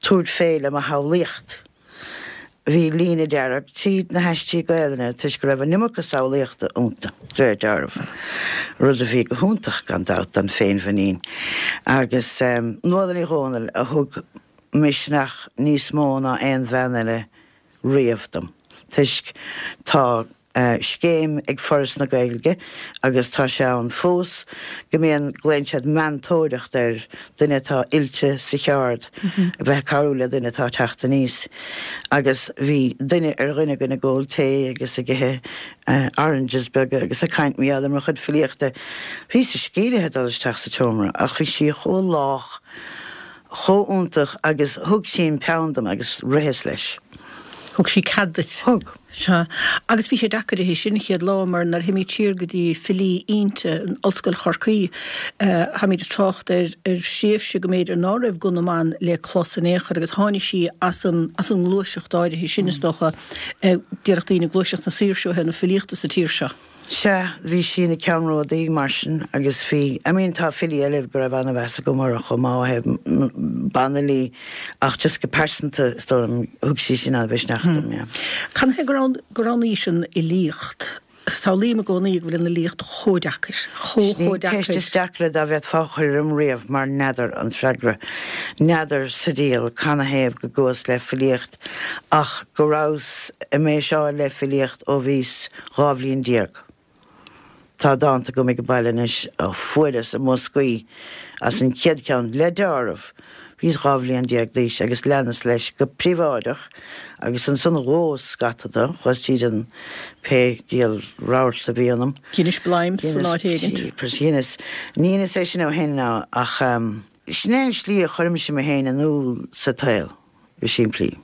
tabhairt fé le mo shamhlaíocht. Bhí líne dearg tríd na haistí Gaelainne toisc go raibh an iomarca samhlaíochta iontu, de réir dealraimh, rud a bhí go hiontach, gan dabht, don féinmhuinín. Agus Nuala Ní Dhomhnaill a thug misneach níos mó ná aon bhean eile riamh dom, toisc tá scéim ag Foras na Gaeilge, agus tá sé ann fós, go mbíonn, glaonn siad meantóireacht air, duine atá oilte sa cheard a bheith ag cabhrú le duine atá ag teacht aníos. Agus bhí duine ar dhuine againn ag ól tae agus ag ithe oranges beaga agus ag caint mar gheall ar mo chuid filíochta. Bhíos scírithe dul isteach sa tseomra ach bhí sí chomh lách, chomh iontach agus thug sí an peann dom agus ritheas leis. Thug sí cead duit? Thug. Sea. Agus bhí sé deacair uirthi sin an chéad lá mar nuair a théimid siar go dtí filí innte in Ollscoil Chorcaí, táimid ag trácht ar ar thréimhse go mb'fhéidir ná raibh guth na mban le clos in aon chor agus tháinig sí as an as an ngluaiseacht áirithe sin is dócha, déarfadh daoine gluaiseacht na saoirse ó thaobh na filíochta sa tír seo. Sea, bhí sí ina ceannródaí mar sin agus bhí, I mean tá filí eile go raibh an-mheas agam orthu chomh maith ó thaobh banfhilí ach just go pearsanta is dóigh liom thug sí sin an-mhisneach dom, yeah. Cad ina thaobh gur roghnaís an fhilíocht? Samhlaím i gcónaí go bhfuil an fhilíocht chomh deacair, chomh Sin í chomh an ceist deacair. is deacra dá bhféadfá a chur orm riamh mar n'fheadar an freagra. N'fheadar sa diabhal canathaobh go gcuas le filíocht ach go rabhas i mbéiseáil le filíocht ó bhíos 12 bhliain. Tá dánta agam ag baile anois a fuaireas i mboscaí as an chéad cheann, le deáramh. Bhíos 12 bhliain d'aois agus leanas leis go príobháideach agus ansan dhóas scata de, chuas tríd an pé diabhal rabharta a bhí ionam. Dheinis bleim san áit éigint. Dheineas, ní dheineas é sin ó shin ach sin é an slí a chuirimse mé féin in iúl sa tsaol, go simplí.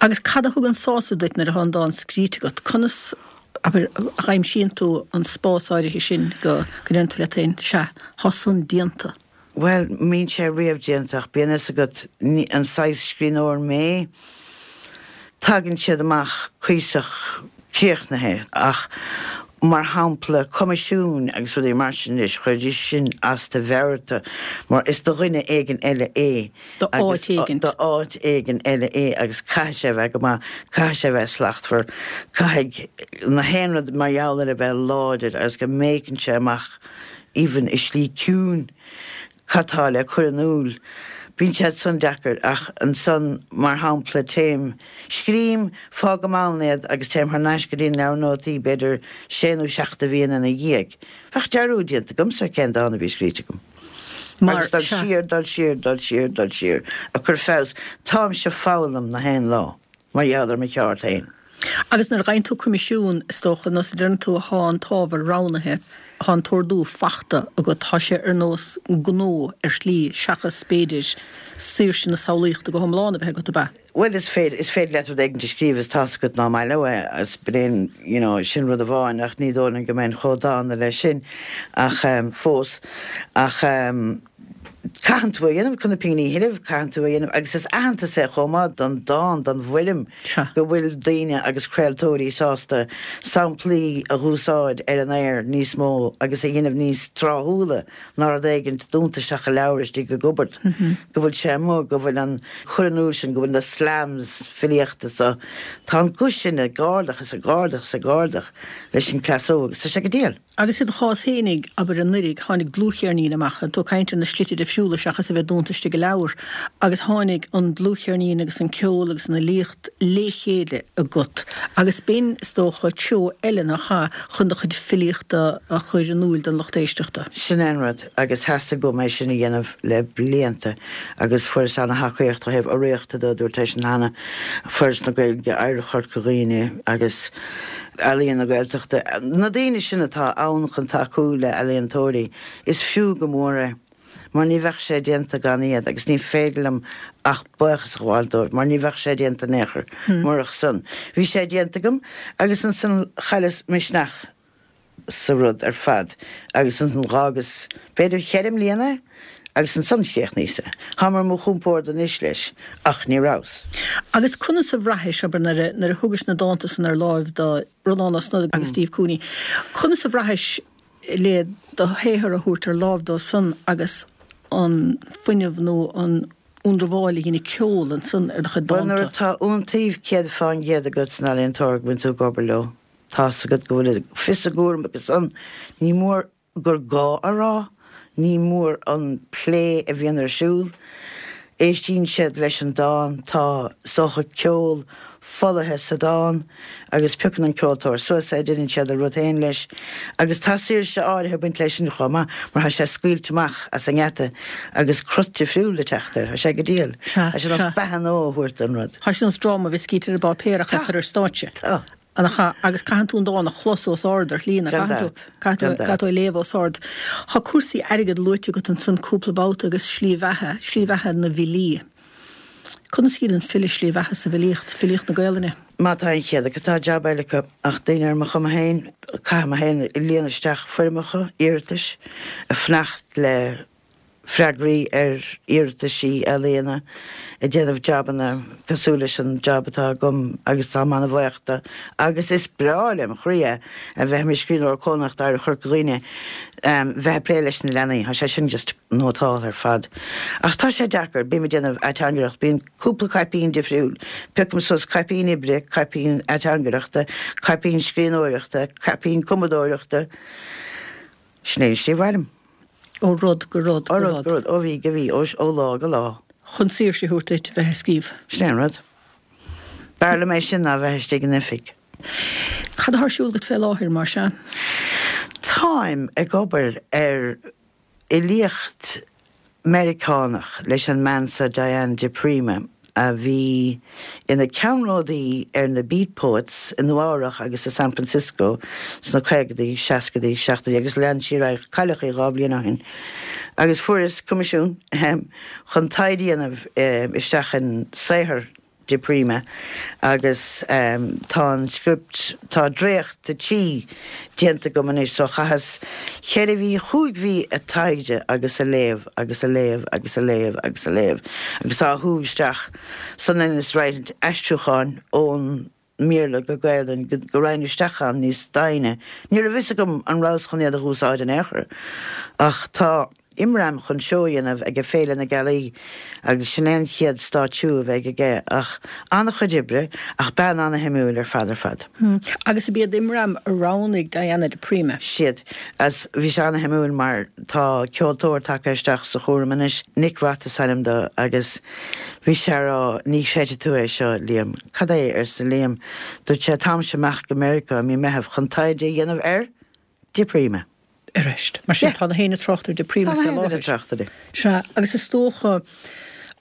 Agus cad a thugann sásamh duit nuair atá an dán scríte agat? Conas, abair, a dh'aimsíonn tú an spás áirithe sin go ndeireann tú leat féin, sea, tá san déanta? Bhuel, mbíonn sé riamh déanta ach bíonn fhios agat, an saghas scríbhneoir mé, tagann siad amach cuíosach críochnaithe ach mar shampla coimisiúin agus rudaí mar sin anois, chuiridís sin as do mheabhair mar is do dhuine éigin eile é. Do áit éigin. Do áit éigin eile é agus caithfidh sé a bheith go maith, caithfidh sé a bheith slachtmhar, caithfidh na haon rud mar gheall air a bheith láidir agus go mbéiceann sé amach even i slí ciúin cad tá le cur in iúl. Bíonn siad san deacair ach ansan mar shampla téim, scrím, fágaim ann iad agus téim thar n-ais go dtí an leabhar nótaí b'fhéidir sé nó seacht de mhíonna ina dhiaidh. Bheadh dearúd déanta agamsa ar cén dán a bhí scríte agam. Mar, Agus dul sea. siar, dul siar, dul siar, dul siar, ag cur feabhas. Táimse ag foghlaim na haon lá mar gheall ar mo cheard féin. Agus nuair a fhaigheann tú coimisiún, is dócha, nós a deireann tú, thá an t-ábhar roghnaithe, thá an t-ordú fachta agat, thá sé ar nós gnó ar shlí seachas, b'fhéidir, saoirse na samhlaíochta go hiomlán a bheith agat, ab ea? Bhuel, is féidir, is féidir leat rud éigin a scríobh is tá's agat ná maith leo é agus b'in, you know, sin rud amháin ach ní dóigh liom go mbeinn chomh dána leis sin ach ehm fós. Ach ehm caitheann tú é a dhéanamh chun na pingní a thuilleamh, caitheann tú é a dhéanamh agus is aitheantas é chomh maith don dán, don bhfoirm Sea. go bhfuil daoine agus craoltóirí sásta samplaí a dh'úsáid ar an aer níos mó agus a dhéanamh níos tráthúla ná rud éigint dúnta isteach i leabhar istigh i gcupboard, go bhfuil sé amuigh, go bhfuil an cur in iúl sin, go bhfuil na slams filíochta so, tá an guth sin ag ardach is ag ardach is ag ardach leis an chleas óg agus tá sé go diail. Agus i do chás fhéinig, abair, anuraidh, tháinig dlúthcheirnín amach, tú ag caint ar na slite difriúla. difriúla seachas a bheith dúnta istigh i leabhar agus tháinig an dlúthcheirnín agus an ceol agus an fhilíocht lé chéile agat agus b'in, is dócha, treo eile nach ea, chun do chuid filíochta a chur in iúil don lucht éisteachta. Sin é an rud agus theastaigh uaim é sin a dhéanamh le blianta agus fuaireas ana-thacaíocht ó thaobh urraíochta de, dúirt é sin cheana, Foras na Gaeilge, Oidhreacht Chorca Dhuibhne agus Ealaíon na Gaeltachta, na daoine sin atá ann chun tacú le ealaíontóirí, is fiú go mór é mar ní bheadh sé déanta gan iad agus ní féidir liom ach buíochas a ghabháil dóibh mar ní bheadh sé déanta in aon chor murach san. Bhí sé déanta agam agus ansan chailleas misneach sa rud ar fad agus ansan dh'fhágas b'fhéidir cheithre mbliana é agus ansan chríochnaíos é. Táim ar mo chompord anois leis ach ní rabhas. Agus conas a bhraithis, abair, nuair a, nuair a thugais na dánta san ar láimh do Rónán Ó Snodaigh agus Steve Cooney, conas a bhraithis le do shaothar a thabhairt ar láimh dóibh san agus an fuinneamh nó an ionramháil a dhein an ceol ansan ar do chuid Bhuel, nuair dánta? atá iontaoibh 100% agat san ealaíontóir go mbíonn tú ag obair leo, tá's agat go bhfuil fios a gcúraim acu san, ní mór gur gá a rá, ní mór an plé a bhíonn ar siúl. Éistíonn siad leis an dán, tá, is dócha, ceol folaithe sa dán agus piocann an ceoltóir suas é, déanann siad a rud féin leis agus tá saoirse áirithe ag baint leis sin chomh maith mar tá sé scaoilte amach as an ngeata agus crut difriúil ag teacht air, tá sé go diail. Sea, Tá sé nós sea. beatha nua a thabhairt don rud. Tá sé nós dráma a bheith scríte ar an bpáipéar ach a Tá. chur ar stáitse. Tá. Nach ea, agus caitheann tú an dán a chlos os ard ar shlí, nach Gan gcaitheann tú? dabht. Caithfidh tú, Gan dabht. caithfidh tú é a léamh os ard. Tá cúrsaí airgid luaite agat ansan cúpla babhta agus slí bheatha, slí bheatha na bhfilí. Conas a shíleann file slí bheatha sa bhfilíocht, filíocht na Gaelainne? Má tá an chéad acu, tá jab eile acu, ach daoine ar mo chuma féin, caithfidh mé féin líonadh isteach foirmeacha iarratais, ag fanacht le freagraí ar iarrataisí ealaíona, ag déanamh jabanna cosúil leis an jab atá agam agus táim ana-bhuíoch de agus is breá lem chroí é a bheith i mo scríbhneoir cónaitheach d'Oidhreacht Chorca Dhuibhne, bheith ag plé leis na leanaí, tá sé sin just nótálta ar fad. Ach tá sé deacair, bím ag déanamh ateangaireacht, bíonn cúpla caipín difriúil, piocaim suas caipín oibre, caipín ateangaireachta, caipín scríbhneoireachta, caipín cumadóireachta, sin é an slí a mhairim. Ó rud go rud go rud. Ó rud go rud, ó mhí go mhí, ó lá go lá. Chun saoirse a thabhairt duit bheith ag scríobh. Sin é an rud. B'fhearr liom é sin ná bheith istigh in oifig. Cad atá ar siúl agat fé láthair, mar sea? Táim ag obair ar fhilíocht Meiriceánach leis an mbean seo Diane di Prima. a bhí ina ceannródaí ar na Beat Poets i Nua Eabhrach agus i San Francisco sna caogaidí, seascaidí, seachtóidí agus lean sí ar aghaidh, cailleadh í 2 bliain ó shin agus fuaireas coimisiún, ahem, chun taighde a dhéanamh isteach in saothar di Prima agus tá an script, tá dréacht de tí déanta agam anois so chaitheas cheithre mhí, chúig mhí ag taighde agus ag léamh agus ag léamh agus ag léamh agus ag léamh agus á shú isteach san is roinnt aistriúcháin ón mBéarla go Gaelainn go go raghainn isteach ann níos doimhne. Ní raibh fhios agam an rabhas chun iad a dh'úsáid in aon chor ach tá Imram chun seó a dhéanamh aige Féile na Gealaí agus sin é an chéad stáitsiú a bheidh aige ach an-chuid oibre ach bean an-shuimiúil ar fad ar fad. Agus ab iad Imram a roghnaigh Diana di Prima? Siad. Agus bhí sé an-shuimiúil mar tá ceoltóir tagtha isteach sa chúram anois, Nick Roth is ainm dó agus bhí sé a rá ní chreidfidh tú é seo, Liam. Cad é? arsa Liam. Dúirt sé táimse amach go Meiriceá i mí Meitheamh chun taighde a dhéanamh ar di Prima. Arís. Mar sin, tá na héinne ag trácht ar di Prima fé láthair. Sea, agus is dócha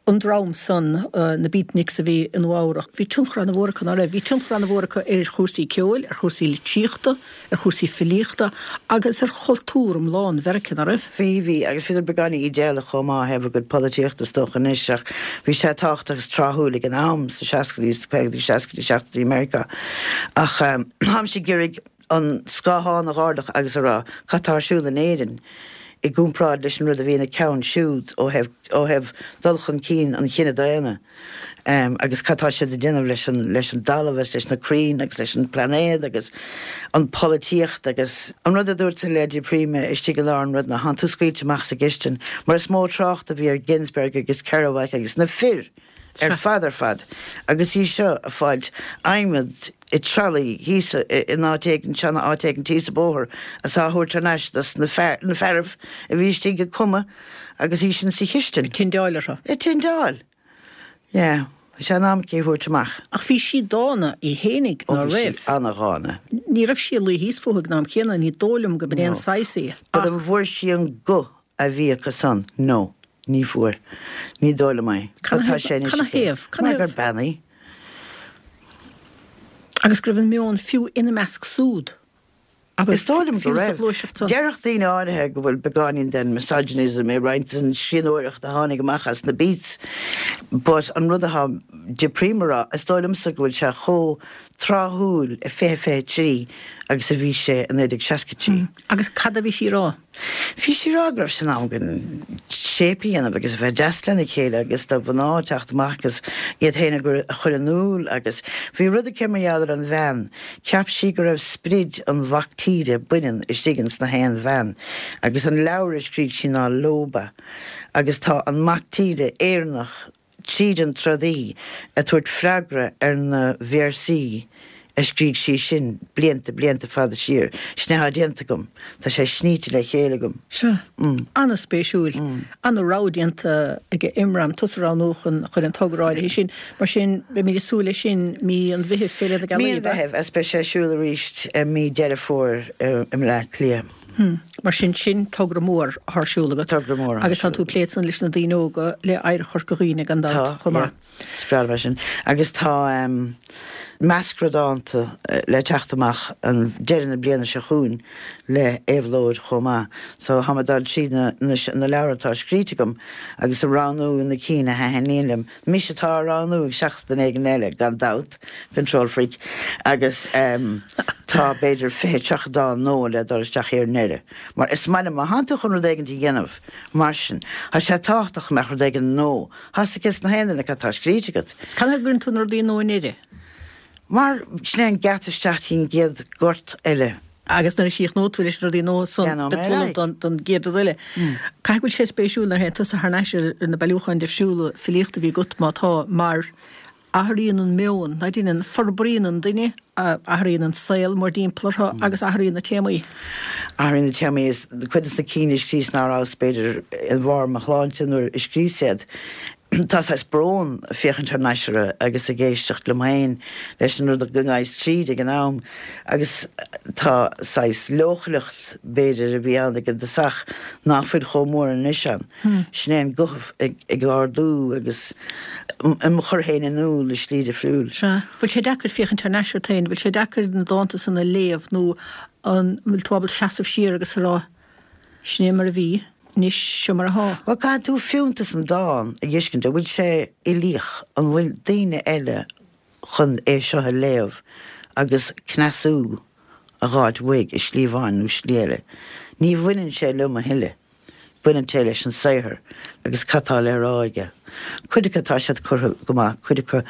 an dream san, na Beatniks a bhí i Nua Eabhrach, bhí tionchar ana-mhór acu, ná raibh? Bhí tionchar ana-mhór acu ar chúrsaí ceoil, ar chúrsaí litríochta, ar chúrsaí filíochta agus ar chultúr iomlán Mheiriceá, ná raibh? Bhí, bhí, agus bhíodar beagáinín ídéalach chomh maith ó thaobh a gcuid polaitíochta is dócha anois ach bhí sé tábhachtach agus tráthúil ag an am, sna seascaidí, sna caogaidí, seascaidí, seachtóidí i Meiriceá. Ach táimse ag iarraidh an scáthán a dh'ardach agus a rá cad tá ar siúl in Éirinn i gcomparáid leis an rud a bhí ina ceann siúd ó thaobh ó thaobh dul chun cinn an chine daonna agus cad tá siad ag déanamh leis an leis an dtalamh agus leis na crainn agus leis an bplainéad agus an pholaitíocht agus an rud a dúirt le di Prima istigh i lár an rud ná thánn tú scaoilte amach sa gcistin mar is mó trácht a bhí ar Ginsberg agus Kerouac agus na fir ar fad ar fad agus í seo ag fáilt adhmad. I trolley thíos in áit éigin, seana áit éigin thíos an bóthar is á thabhairt thar n-ais dos na fear, na fearaibh a bhí istigh ag cumadh agus í sin sa chistin. Ag tindeáil orthu. Ag tindeáil! Yeah. Bhí sé in am aici a thabhairt amach. Ach bhí sí dána í fhéinig, Ó ná bhí sí raibh? ana-dhána. Ní raibh sí ag luí thíos fúthu ag an am céanna, ní dóigh liom go b'in é an No. saghas í. But Ach. an bhfuair sí an guth a bhí acu san? No. Ní fuair. Ní dóigh liom é. Cad Tá sé anois Cad 'na aici. thaobh? Cad Mar 'na gur thaobh? bean í. Agus go raibh an meon fiú ina measc súd Is agus dóigh liom go fiú sa raibh. ghluaiseacht san. Déarfadh daoine áirithe go bhfuil beagáinín den misogynism i roinnt den scríbhneoireacht a tháinig amach as na Beats but an rud atá De Prima a rá, is dóigh liomsa go bhfuil sé chomh tráthúil i 2023 agus a bhí sé i 1963. Agus cad a bhí sí a rá? Bhí sí a rá go raibh sé in am againn shape a dhéanamh agus a bheith deas lena chéile agus do mhná teacht amach agus iad féin a chur in iúl agus bhí rud aici mar gheall ar an bhean, cheap sí go raibh sprid an mhac tíre baineann istigh ins na haon bhean agus an leabhar a scrígh sí ná Lóba agus tá an mac tíre Éireannach tríd an trodaí ag tabhairt freagra ar na véarsaí a scrígh sí sin blianta, blianta fada siar. Sin é atá déanta agam. Tá sé sníte le chéile agam. Sea. An-spéisiúil. An-rogha déanta ag Imram, tusa a roghnú chun chun an togra áirithe sin. Mar sin, beimid ag súil leis sin mí an Mheithimh, Féile na Mí Gealaí, an ab ea? Mheithimh, agus beidh sé ar siúl arís i mí Deireadh Fómhair i mBleá Cliath. Mar sin, sin togra mór atá ar siúl agat. Togra mór atá ar Agus tá siúl tú ag plé ansan leis na daoine óga, le Oidhreacht Chorca Dhuibhne gan dabht Tá, chomh yeah. maith. Is breá liom é sin. Agus tá meascra dánta le teacht amach an deireadh na bliana seo chugainn le Éabhlóid chomh maith. So tá mé ag dul tríd na na leabhair atá scríte agam agus ag roghnú na cinn a thaitníonn liom. Mise atá á roghnú seachas duine éigin eile, gan dabht, control freak, agus tá b'fhéidir 20, 30 dán nua le dul isteach ar an ndeireadh. Mar is maith liom, má thánn tú chun rud éigin a dhéanamh mar sin, tá sé tábhachtach go mbeadh rud éigin nua. Tá 'fhios ages na haon duine cad tá scríte agat. Is cad chuige a gcuireann tú na rudaí nua i ndeireadh? Mar sin é an geata isteach dtí an gcéad ghort eile. Agus nuair a chríochnóidh tú leis na rudaí nua san, Leanfaidh mé beidh tú ar ullamh aghaidh. don gcéad rud eile. Caithfidh go bhfuil sé spéisiúil nuair a théann tusa thar n-ais ar na bailiúcháin difriúla filíochta a bhí agat, má tá, mar athraíonn an meon, ná déanann, forbraíonn an duine, athraíonn an saol mórdtimpeall orthu agus athraíonn na téamaí. Athraíonn na téamaí is cuid de na cinn a scríos ná rabhas b'fhéidir i mbarr mo shláinte nuair a scríos iad. Tá saghas brón ag féachaint thar n-ais orthu agus ag éisteacht liom féin leis an rud go ngabhas tríd ag an am agus tá saghas leochaileacht b'fhéidir a bhí ann ag an dtosach nach bhfuil chomh mór anois ann. Sin é an guth ag ardú agus im chur féin in iúl i slí difriúil. Sea. Bhfuil sé deacair féachaint thar n-ais ort féin? Bhfuil sé deacair na dánta san a léamh nó an bhfuil tú ábalta seasamh siar agus a rá Sin é mar a bhí, anois seo mar athá. Bhuel, caithfidh tú fiúntas an dán a dh'fheiscint, an bhfuil sé uilíoch, an bhfuil daoine eile chun é seo a léamh agus cneasú a dh'fháilt uaidh i slí amháin nó slí eile. Ní bhaineann sé liom a thuilleadh, baineann sé leis an saothar agus cad tá le rá aige. Cuid acu tá siad curtha go maith, cuid acu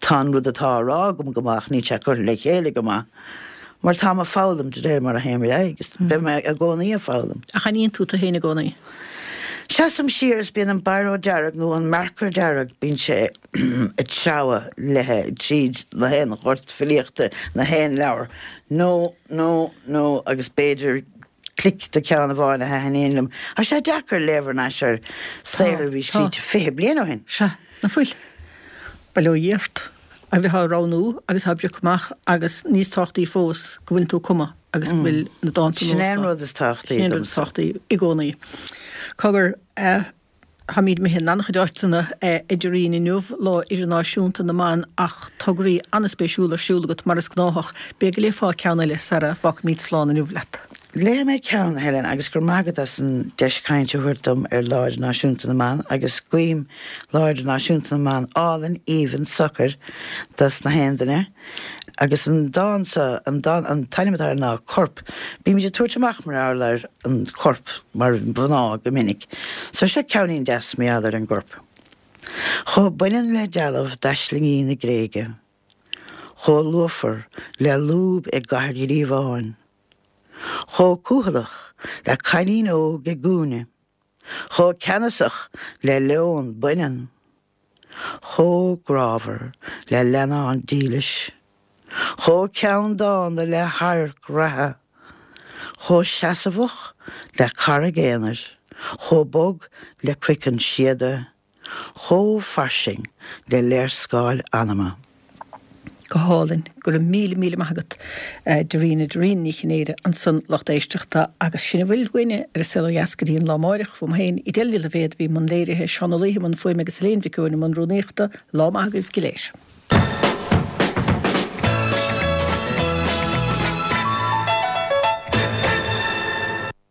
tá an rud atá á rá agam go maith ach níl sé curtha le chéile go maith. Mar táim ag foghlaim de réir mar a théim ar aghaidh agus beidh mé i gcónaí ag foghlaim. Ach aithníonn tú tú féin i gcónaí? Seasaim siar is bíonn an biro dearg nó an marker dearg, bíonn sé ag treabhadh léithe tríd na haon ghort filíochta, na haon leabhar. No, no, no agus b'fhéidir clic de ceann amháin a thaitníonn liom. Tá sé deacair léamh thar n-ais ar saothar a bhí scríte 20 bliain ó shin. Sea, ná fuil. Bail ó Dhia ort. A bheith á roghnú agus á bpriocadh amach agus níos tábhachtaí fós go bhfuileann tú ag cumadh agus go bhfuil na dánta Sin nua é an seo. rud is tábhachtaí Sin é an rud is domsa. tábhachtaí i gcónaí. Cogar, táimid imithe in an-chuid áiteanna idir linn inniu, Lá Idirnáisiúnta na mBan ach tograí an-spéisiúla ar siúl agat mar is gnáthach. B'fhéidir go léifeá ceann eile sara bhfágfaimid slán inniu leat. Léifidh mé ceann, a Helen, agus go raibh maith agat as an deis cainte a thabhairt dom ar Lá Idirnáisiúnta na mBan agus guím Lá Idirnáisiúnta na mBan álainn, aoibhinn, socair dos na haon duine. Agus an dán seo, an dán, an t-ainm atá air ná Corp. Bímid ag tabhairt amach mar gheall ar an chorp mar mhná go minic. So seo ceainnín deas mar gheall ar an gcorp. Chomh baineann le dealbh d'aislingí na Gréige. Chomh luafar le lúb i gCathair Ghríobháin. Chomh cúthaileach le cailín óg i gcúinne. Chomh ceannasach le leon baineann. Chomh grámhar le leannán dílis. Chomh ceanndána le hadharc reatha, chomh seasmhach le carraig aonair, chomh bog le croiceann síoda, chomh fairsing le léarscáil anama. Go hálainn. Go raibh míle míle maith agat Darina, Darina Ní Chinnéide ansan lucht éisteachta agus sin a bhfuil uainne ar An Saol Ó Dheas go dtí an lá amáireach. Uaim féin, Edel Ní Loibhéad a bhí i mbun léirithe, Seán Ó Laoithe i mbun fuaime agus Elaine Mhic Eoin i mbun rúnaíochta. Lá maith agaibh go léir.